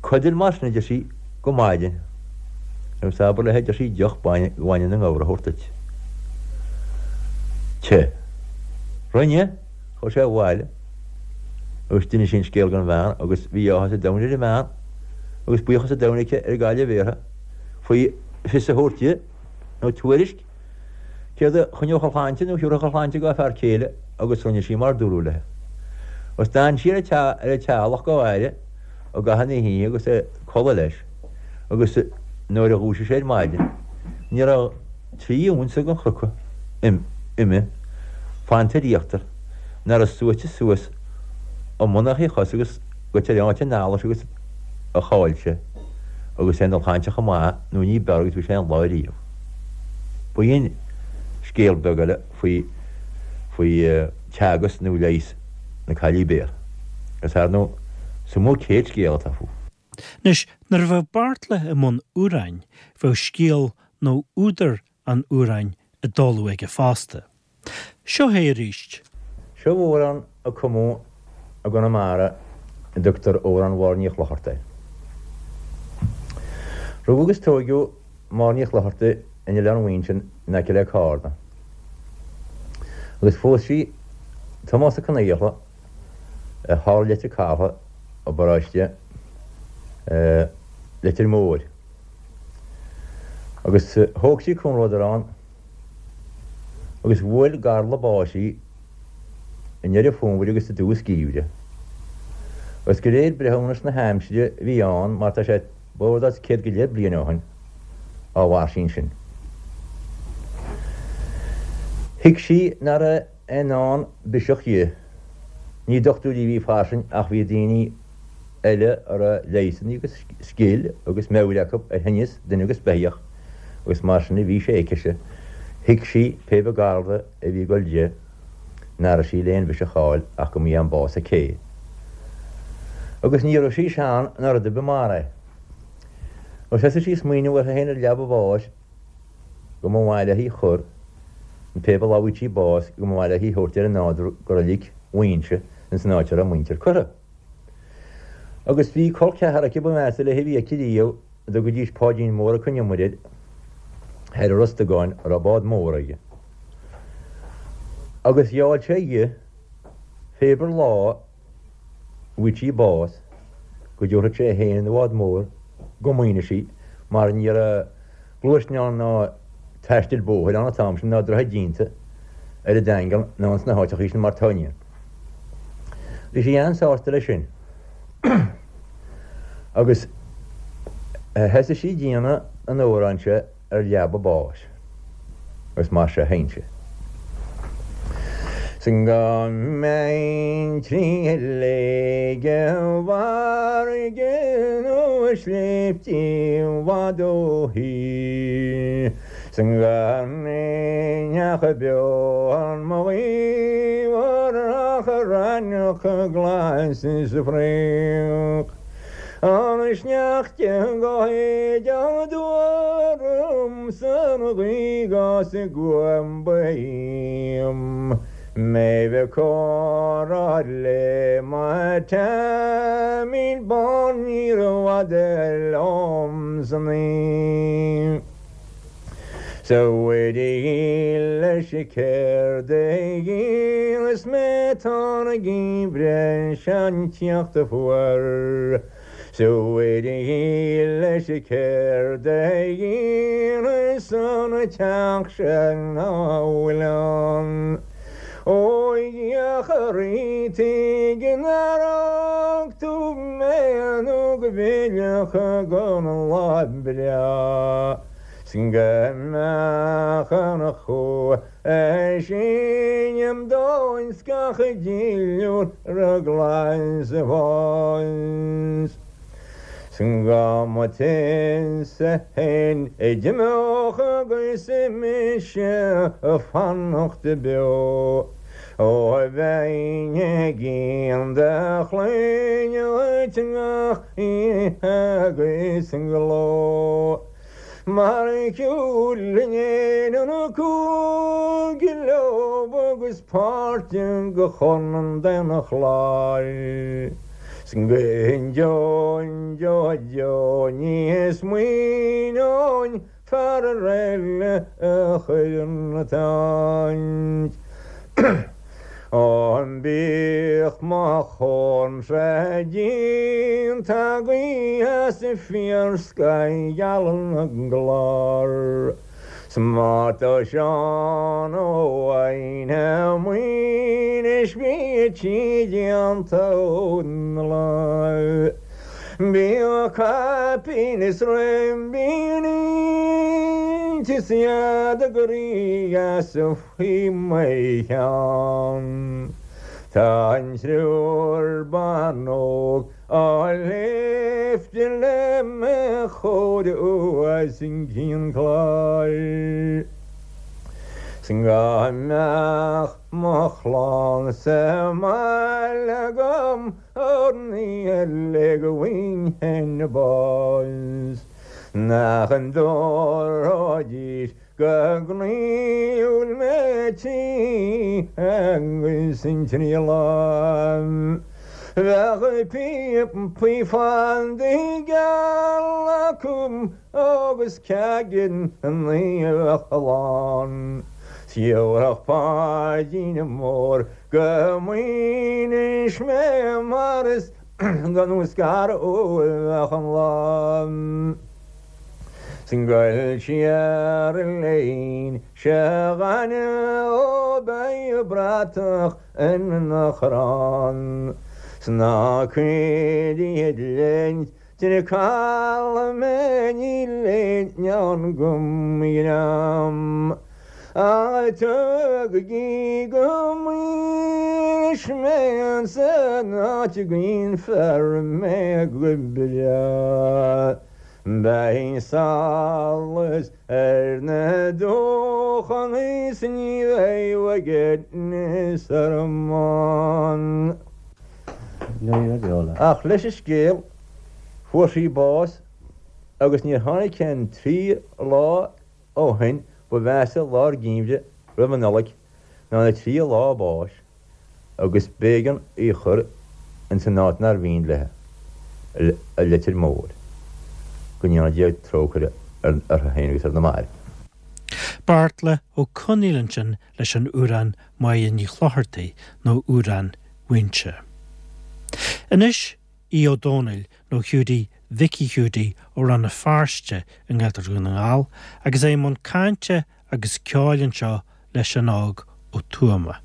codail mar sin, a deir sí, go maidin. Agus abair léi, a deir sí, deoch bainne na ngabhar a thabhairt duit. Te. Rinne. Chuaigh sé abhaile agus d'inis sé an scéal don bhean agus bhí áthas an domhain ar an mbean agus buíochas an domhain aici ar an gcailleach bhéartha faoi fios a thabhairt di nó tuairisc céard a choinneodh a shláinte nó a thiúrfadh a shláinte dhá fear céile agus rinne sí mar dúradh léi. Agus d'fhan sí ar an teallach dhá fhaire i gcaitheamh na hoíche agus é ag codladh leis agus nuair a dhúisigh sé ar maidin ní raibh 3 unsa den chrúca ime fanta ar íochtar nach raibh suaite suas i mbonnachaí a chos agus go teorainn an allais agus a chaill sé agus é ina shláinte chomh maith nó ní b'fhearr agus bhí sé aon lá riamh. B'in scéal beag eile faoi faoi teagasc nó leigheas na Caillí Béartha. Agus ar ndóigh, is iomaí céad scéal atá fúithi. Anois, nuair a bheadh Beartla i mbun amhráin, bheadh scéal nó údar an amhráin i dtólamh aige fosta. Seo é arís. Seo amhrán a cumadh i gConamara a dtugtar Amhrán Mháire Ní Chlochartaigh air. Rugadh agus tóigeadh Máire Ní Chlochartaigh in Oileán Mhuinseo in aice le Cárna agus phós sí Tomás Ó Conaola thall i Leitir Catha i bparóiste Leitir Móir agus thóg sí comhluadar ann agus bhuail garla báis í i ndeireadh fómhair agus i dtús geimhridh. Agus de réir breithiúnas na haimsire a bhí ann, mar tá sé b'fhada is 100 go leith bliain ó shin, á mhair sí ansin. Thuig sí nach raibh aon ndán biseach di. Ní dochtúirí a bhí fairsing ach bhí daoine eile a raibh leigheasanna agus scil agus meabhair acu ar thinneas duine agus beithíoch agus mar sin a bhí sé aicise. Thuig sí pé bith garla a bhí ag dul di. nach raibh sí le aon bhiseach a fháil ach go mba é an bás a cé. Agus ní raibh sí sean ná rud ar bith mar é. Agus thosaigh sí ag smaoineamh uirthi féin ar leaba a bháis go mba mhaith léi chur, pé bealach a bhfaigheadh sí bás, go mba mhaith léi thabhairt ar an nádúr go reilig Mhuighinse ins an áit a raibh a muintir curtha. Agus bhí col ceathar aici ba mheasa léi a bhí aici riamh, a dtugaidís Páidín Mór Ó Con Iomaire air, thoir i Ros Dugáin, a raibh bád mór aige. Agus gheall sé dhi, pé ar bith lá a bhfaigheadh sí bás, go dtabharfadh sé é féin ina bhád mór go Muighnis í, mar ní raibh gluaisneán ná taisteal bóthair ann an t-am sin ná droichead déanta ar an Daingean ná ins na háiteachaí sin mar tá inniu. Bhí sí an-sásta leis sin agus thosaigh sí ag déanamh an amhráin seo ar leaba a báis agus mar seo a sheinn sí. 'S go mbeinn trí shléibhte i bhfarraige nó i sléibhte i bhfad ó thír. 'S go mbeinn ach beo ar mo ghaobhar ach raithneach glas is fraoch. An sneachta go héideach orm 's an ghaoth 'gus an guaim ba dhíom. Mé bheith comhrá le mo Teaimín bán níorbh fhada liom san oíche. 'S a Mhuire dhílis céard a dhéanfas mé tá an geimhreadh seo ag tíocht fuar. 'S a Mhuire dhílis céard a dhéanfas an teach seo ná fuil ann. Ó a Dhia a Rí tuige nár fhág tú mé nó go bhfillfeadh an lá breá. 'S go mbeadh an chumha sin a'm dóin 's gach duilliúr glas ag fás. 'S go mba tusa fhéin a d'imeodh agus mise ag fanacht beo. Ó bheinn ag guí do chlainne dhuit gach oíche agus ló. Mar a shiúlann éin an cúige leo agus páirt de Chontae an Chláir. 'S go deo deo deo ní smaoineoinn fear eile a chur ina t-áit. Ó bíodh mo chónra déanta agaibh as fíorscoth gheal na gclár, 's má tá Seán Ó Aidhne Maoinis bhí sí déanta ón lá. Bíodh caipín is ribíní is iad a gcroí as faoi mo cheann. Tá an triúr ban óg á léifte le mo chomhair os cionn cláir. 'S go mbeadh mo chlann sa mbaile agam an oíche eile go bhfaighinn féin bás. Nach dtabharfaidís Go gnaíúil mé trí agus an trí lá. Bheadh píopaí fada geala acu agus ceaigin naomhach lán. 'S gheobhadh Páidín Mór go Maínis mé mar is gan scaradh a bheadh an lá. 'S goil siar léin se ghainimh ó beidh bratach ina chrann 's ná cuir iad linn tine caladh mé níl aon go ndream ach tugaigí go Maínis mé san áit a gcaoinfear mé go breá. Beidh solas ar na dumhchanna is ní bheidh. óige 's ar mbun. Ach leis an scéal, fuair sí bás agus níor tháinig aon trí lá ó shin ba mheasa lár geimhridh roimh an Nollaig ná na trí lá a báis agus b'éigean í a chur ins an áit nár mhian léi, i Leitir Móir. Go ndéana Dia trócaire uirthi féin agus ar na mairbh. Beartla Ó Conaola ansin leis an amhrán Máire Ní Chlochartaigh nó Amhrán Mhaínse. Anois Aodh Ó Domhnaill nó Hiúdaí Mhicí Hiúdaí ó Rann na Feirste i nGaeltacht Dhún na nGall agus é i mbun cainte agus ceoil anseo le Seán Óg Ó Tuama.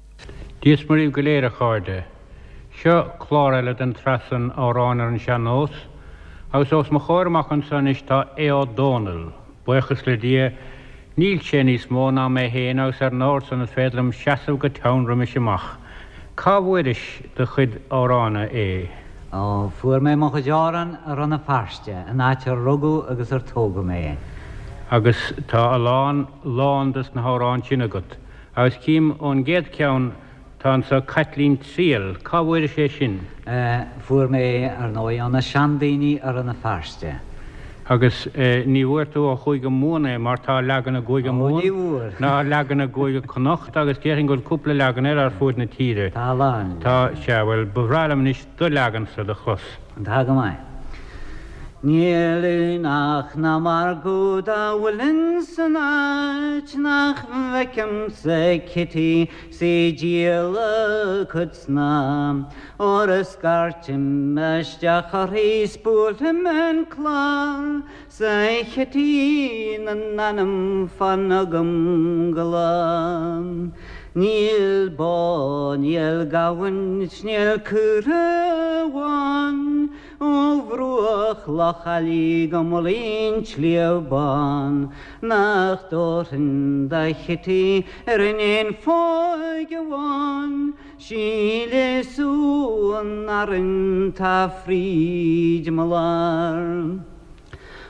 Dia is Muire dhaoibh go léir a chairde. Seo clár eile den tsraith san Amhráin ar an Sean-Nós agus os mo chomhair amach anso anois tá Aodh Ó Domhnaill. Buíochas le Dia níl sé níos mó ná mé féin agus ar an ord san is féidir liom seasamh go teann roimis amach. Cá bhfuairis do chuid amhrána, a Aodh? Ó, fuair mé mo chuid amhrán i Rann na Feirste, an áit ar rugadh agus ar tógadh mé. Agus tá a lán, lán dos na hamhráin sin agat. Agus cím ón gcéad cheann Tá anso Caitlín Triail, cá bhfuairis é sin? Fuair mé é, ar ndóigh, ó na seandaoine i Rann na Feirste. Agus ní bhfuair tú ó Chúige Mumhan é, mar tá leagan i gCúige Mumhan, ná leagan i gCúige Connacht, agus déarfainn go bhfuil cúpla leagan eile ar fuaid na tíre. Tá a lán. Tá, sea, bhuel, ba bhreá liom anois do leagansa do chlos. Tá go maith. Níl aonach ná margadh dá bhfuil ins an áit nach bhfeicimse Kitty 's í díol a cuid snáth. Óir a scairtim isteach uirthi 's buailim an clár 's a Chití na n-anam fan agam go lá. Níl bó, níl gamhain 's níl caora amháin ó bhruach Loch Ailí go mullaigh an tSliabh Bán nach dtabharfainn do Chití ar an aon phóig amháin 'Sí le sú an fhearainn tá fríd mo lár.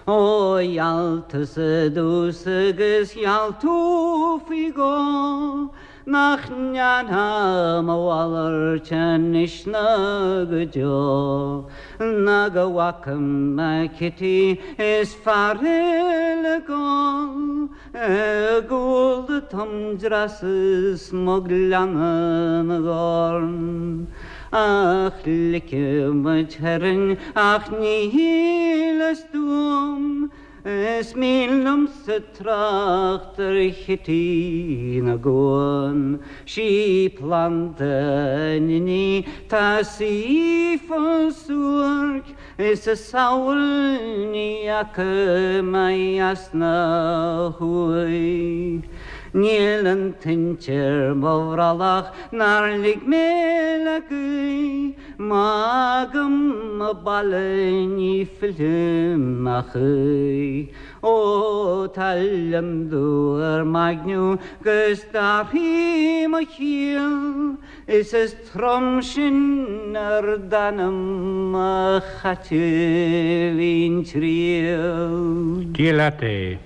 Ó gheall tusa i dtús agus gheall tú faoi dhó nach ndéanfá mo mhalairt anois ná go deo ná go bhfaca mé Kitty is fear eile ag gol I gcúl a tum dreasa is mo ghleanna na gcorn Ach ligfidh muid tharainn ach ní shíleas dom Is mian liomsa trácht ar Chití na gCuan Sí planda an inní tá sí fós suairc Is a samhail ní fhaca mé theas ná thuaidh. Níl an toint ar mo bhrollach nár lig mé le gaoth, Má fhágaim mo baile ní fillfidh mé choíche. Ó tá lionndubh ar m'aigne 'gus d'athraigh mo chiall, Is is trom sin ar d'anam a Chaitlín Triail. Dia leat é.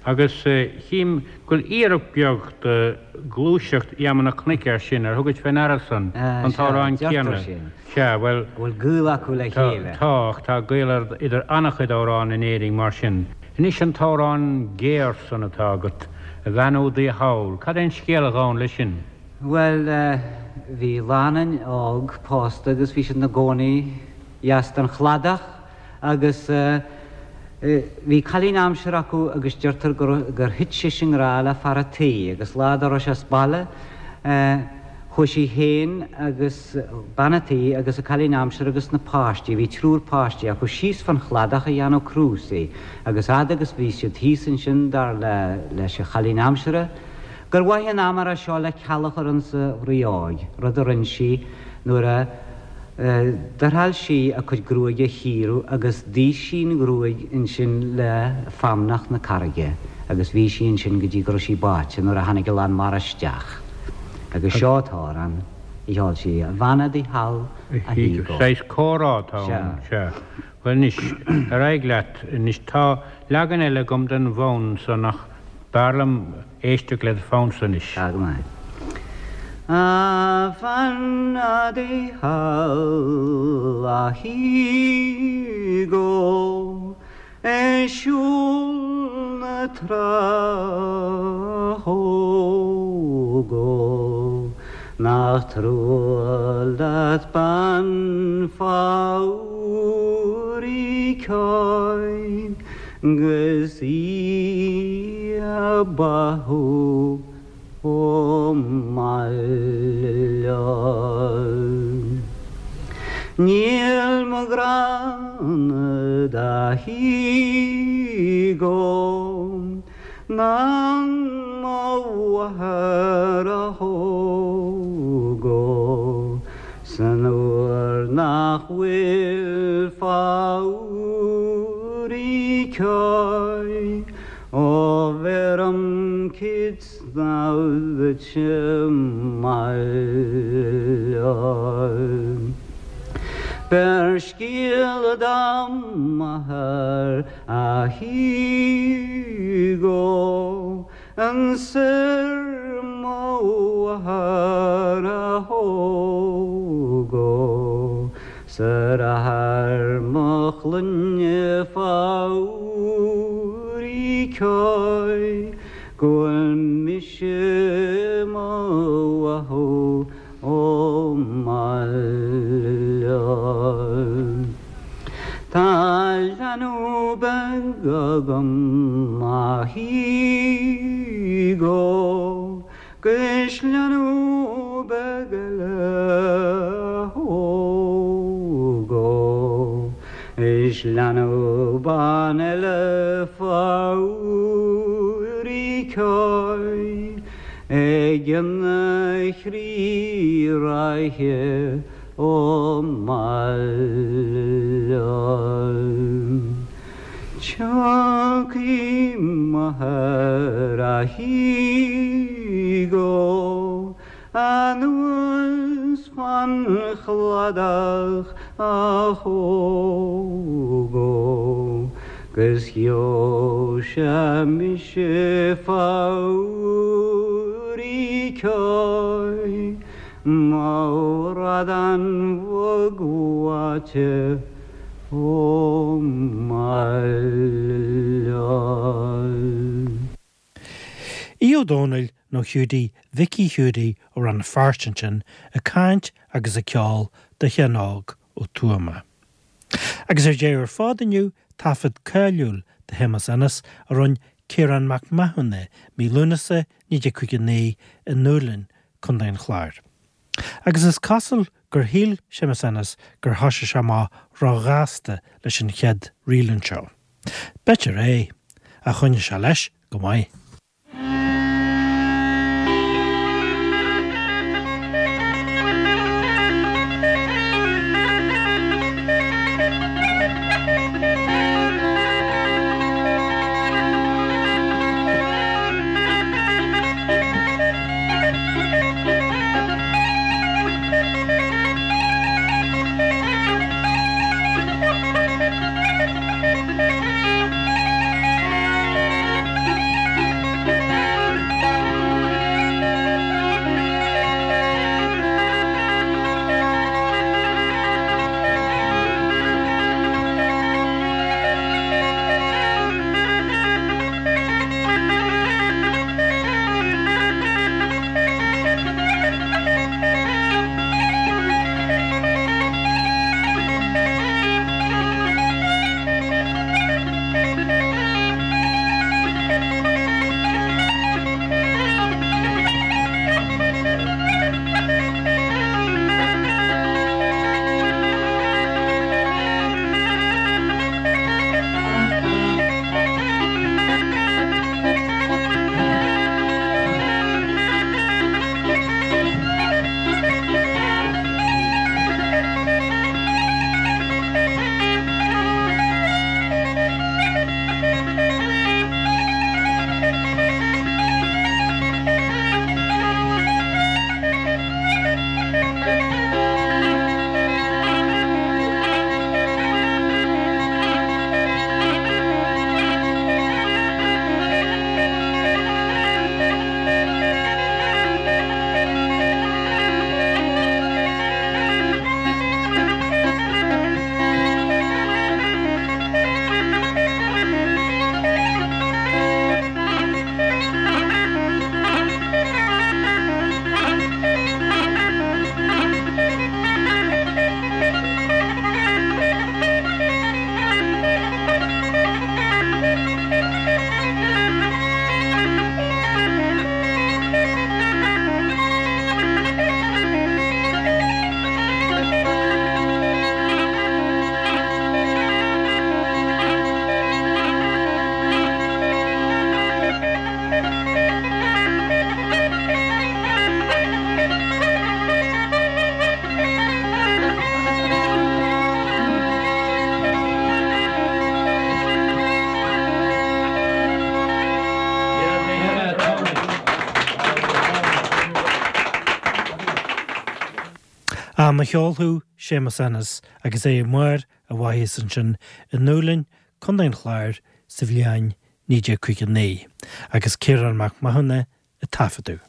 Agus chím go bhfuil iarracht beag de ghluaiseacht Gheama na Cnoic air sin, ar thugais fé ndeara san, an t-amhrán céanna? Sea, bhuel. Go bhfuil gaol acu le chéile. Tá, ach tá gaol idir an-chuid amhrán in Éirinn mar sin. Anois an t-amhrán géar san atá agat, A Bhean Údaí Thall, cad é an scéal a ghabhann leis sin? Bhuel, bhí lánúin óg pósta agus bhí siad ina gcónaí dheas den chladach agus bhí cailín aimsire acu agus deirtear gur thit sise i ngrá le fear a' tí agus lá dá raibh sé as baile chuaigh sí féin agus bean a' tí agus a cailín aimsire agus na páistí, bhí triúr páistí acu, síos fán chladach a dhéanamh crúsaí agus fhad agus bhí siad thíos ansin dar leis an chailín aimsire, Gur mhaith an am é seo le ceal a chur insa bhraothóig, rud a rinn sí nuair a d'fhriotháil sí a cuid gruaige a chíoradh agus d'ith sí an ghruaig ansin le feamnach na carraige agus bhí sí ansin go dtí go raibh sí báite nuair a tháinig a lán mara isteach. Agus seo an t-amhrán a cheol sí, A bhean udaí thall, a Hugo. Saghas comhrá atá ann, sea. Bhuel anois, ar aghaidh leat. Anois tá leagan eile agam den bhfonn san ach b'fhearr liom éisteacht le do phonnsa anois. Tá go maith. A bhean Dé thall a Hugo ag siúl na trá Hugo nach trua leat bean phór í ceoil 'gus í a báthadh ó mbaile. Níl mo ghrá-na do Hugo ná mo mháthair a Hugo san uair nach bhfuil fabhar í ceoil Ó bheirim cid snámh duit i mbaile. Beir scéala dom m'athair a Hugo Ansoir mo mháthair a Hugo 'S ar athair mo chlainne fabhar í ceoil go bhfuil mise mo bháthadh ó mbaile. Tá leanbh beag agam a Hugo 'Gus leanbh beag eile a Hugo Is leanbh bán eile fabhar í ceoil Ag an chroí ráithe ó mbaile. Tiocfaidh m'athair a Hugo anuas fán chladach a Hugo 'gus gheobhaidh sé mise fabhar í ceoil mo bhradán bhog bháite ó mbaile. Aodh Ó Domhnaill nó Hiúdaí Mhicí Hiúdaí ó Rann na Feirste ansin ag caint agus ag ceol do Sheán Óg Ó Tuama. Agus ar deireadh ar fad inniu, taifead cáiliúil de Shéamus Ennis a rinne Ciarán Mac Mathúna mí Lúnasa 1959 i nDúlainn, Co. an Chláir. Agus is cosúil gur shíl Séamus Ennis gur thoisigh sé amach róghasta leis an chéad ríl anseo. B'fhéidir é, ach choinnigh sé leis go maith. Fan mo cheol thú, Séamus Ennis, agus é i mbarr a mhaitheasa ansin i nDúlainn, Contae an Chláir, sa bhliain 1959, agus Ciarán Mac Mathúna ag taifeadadh.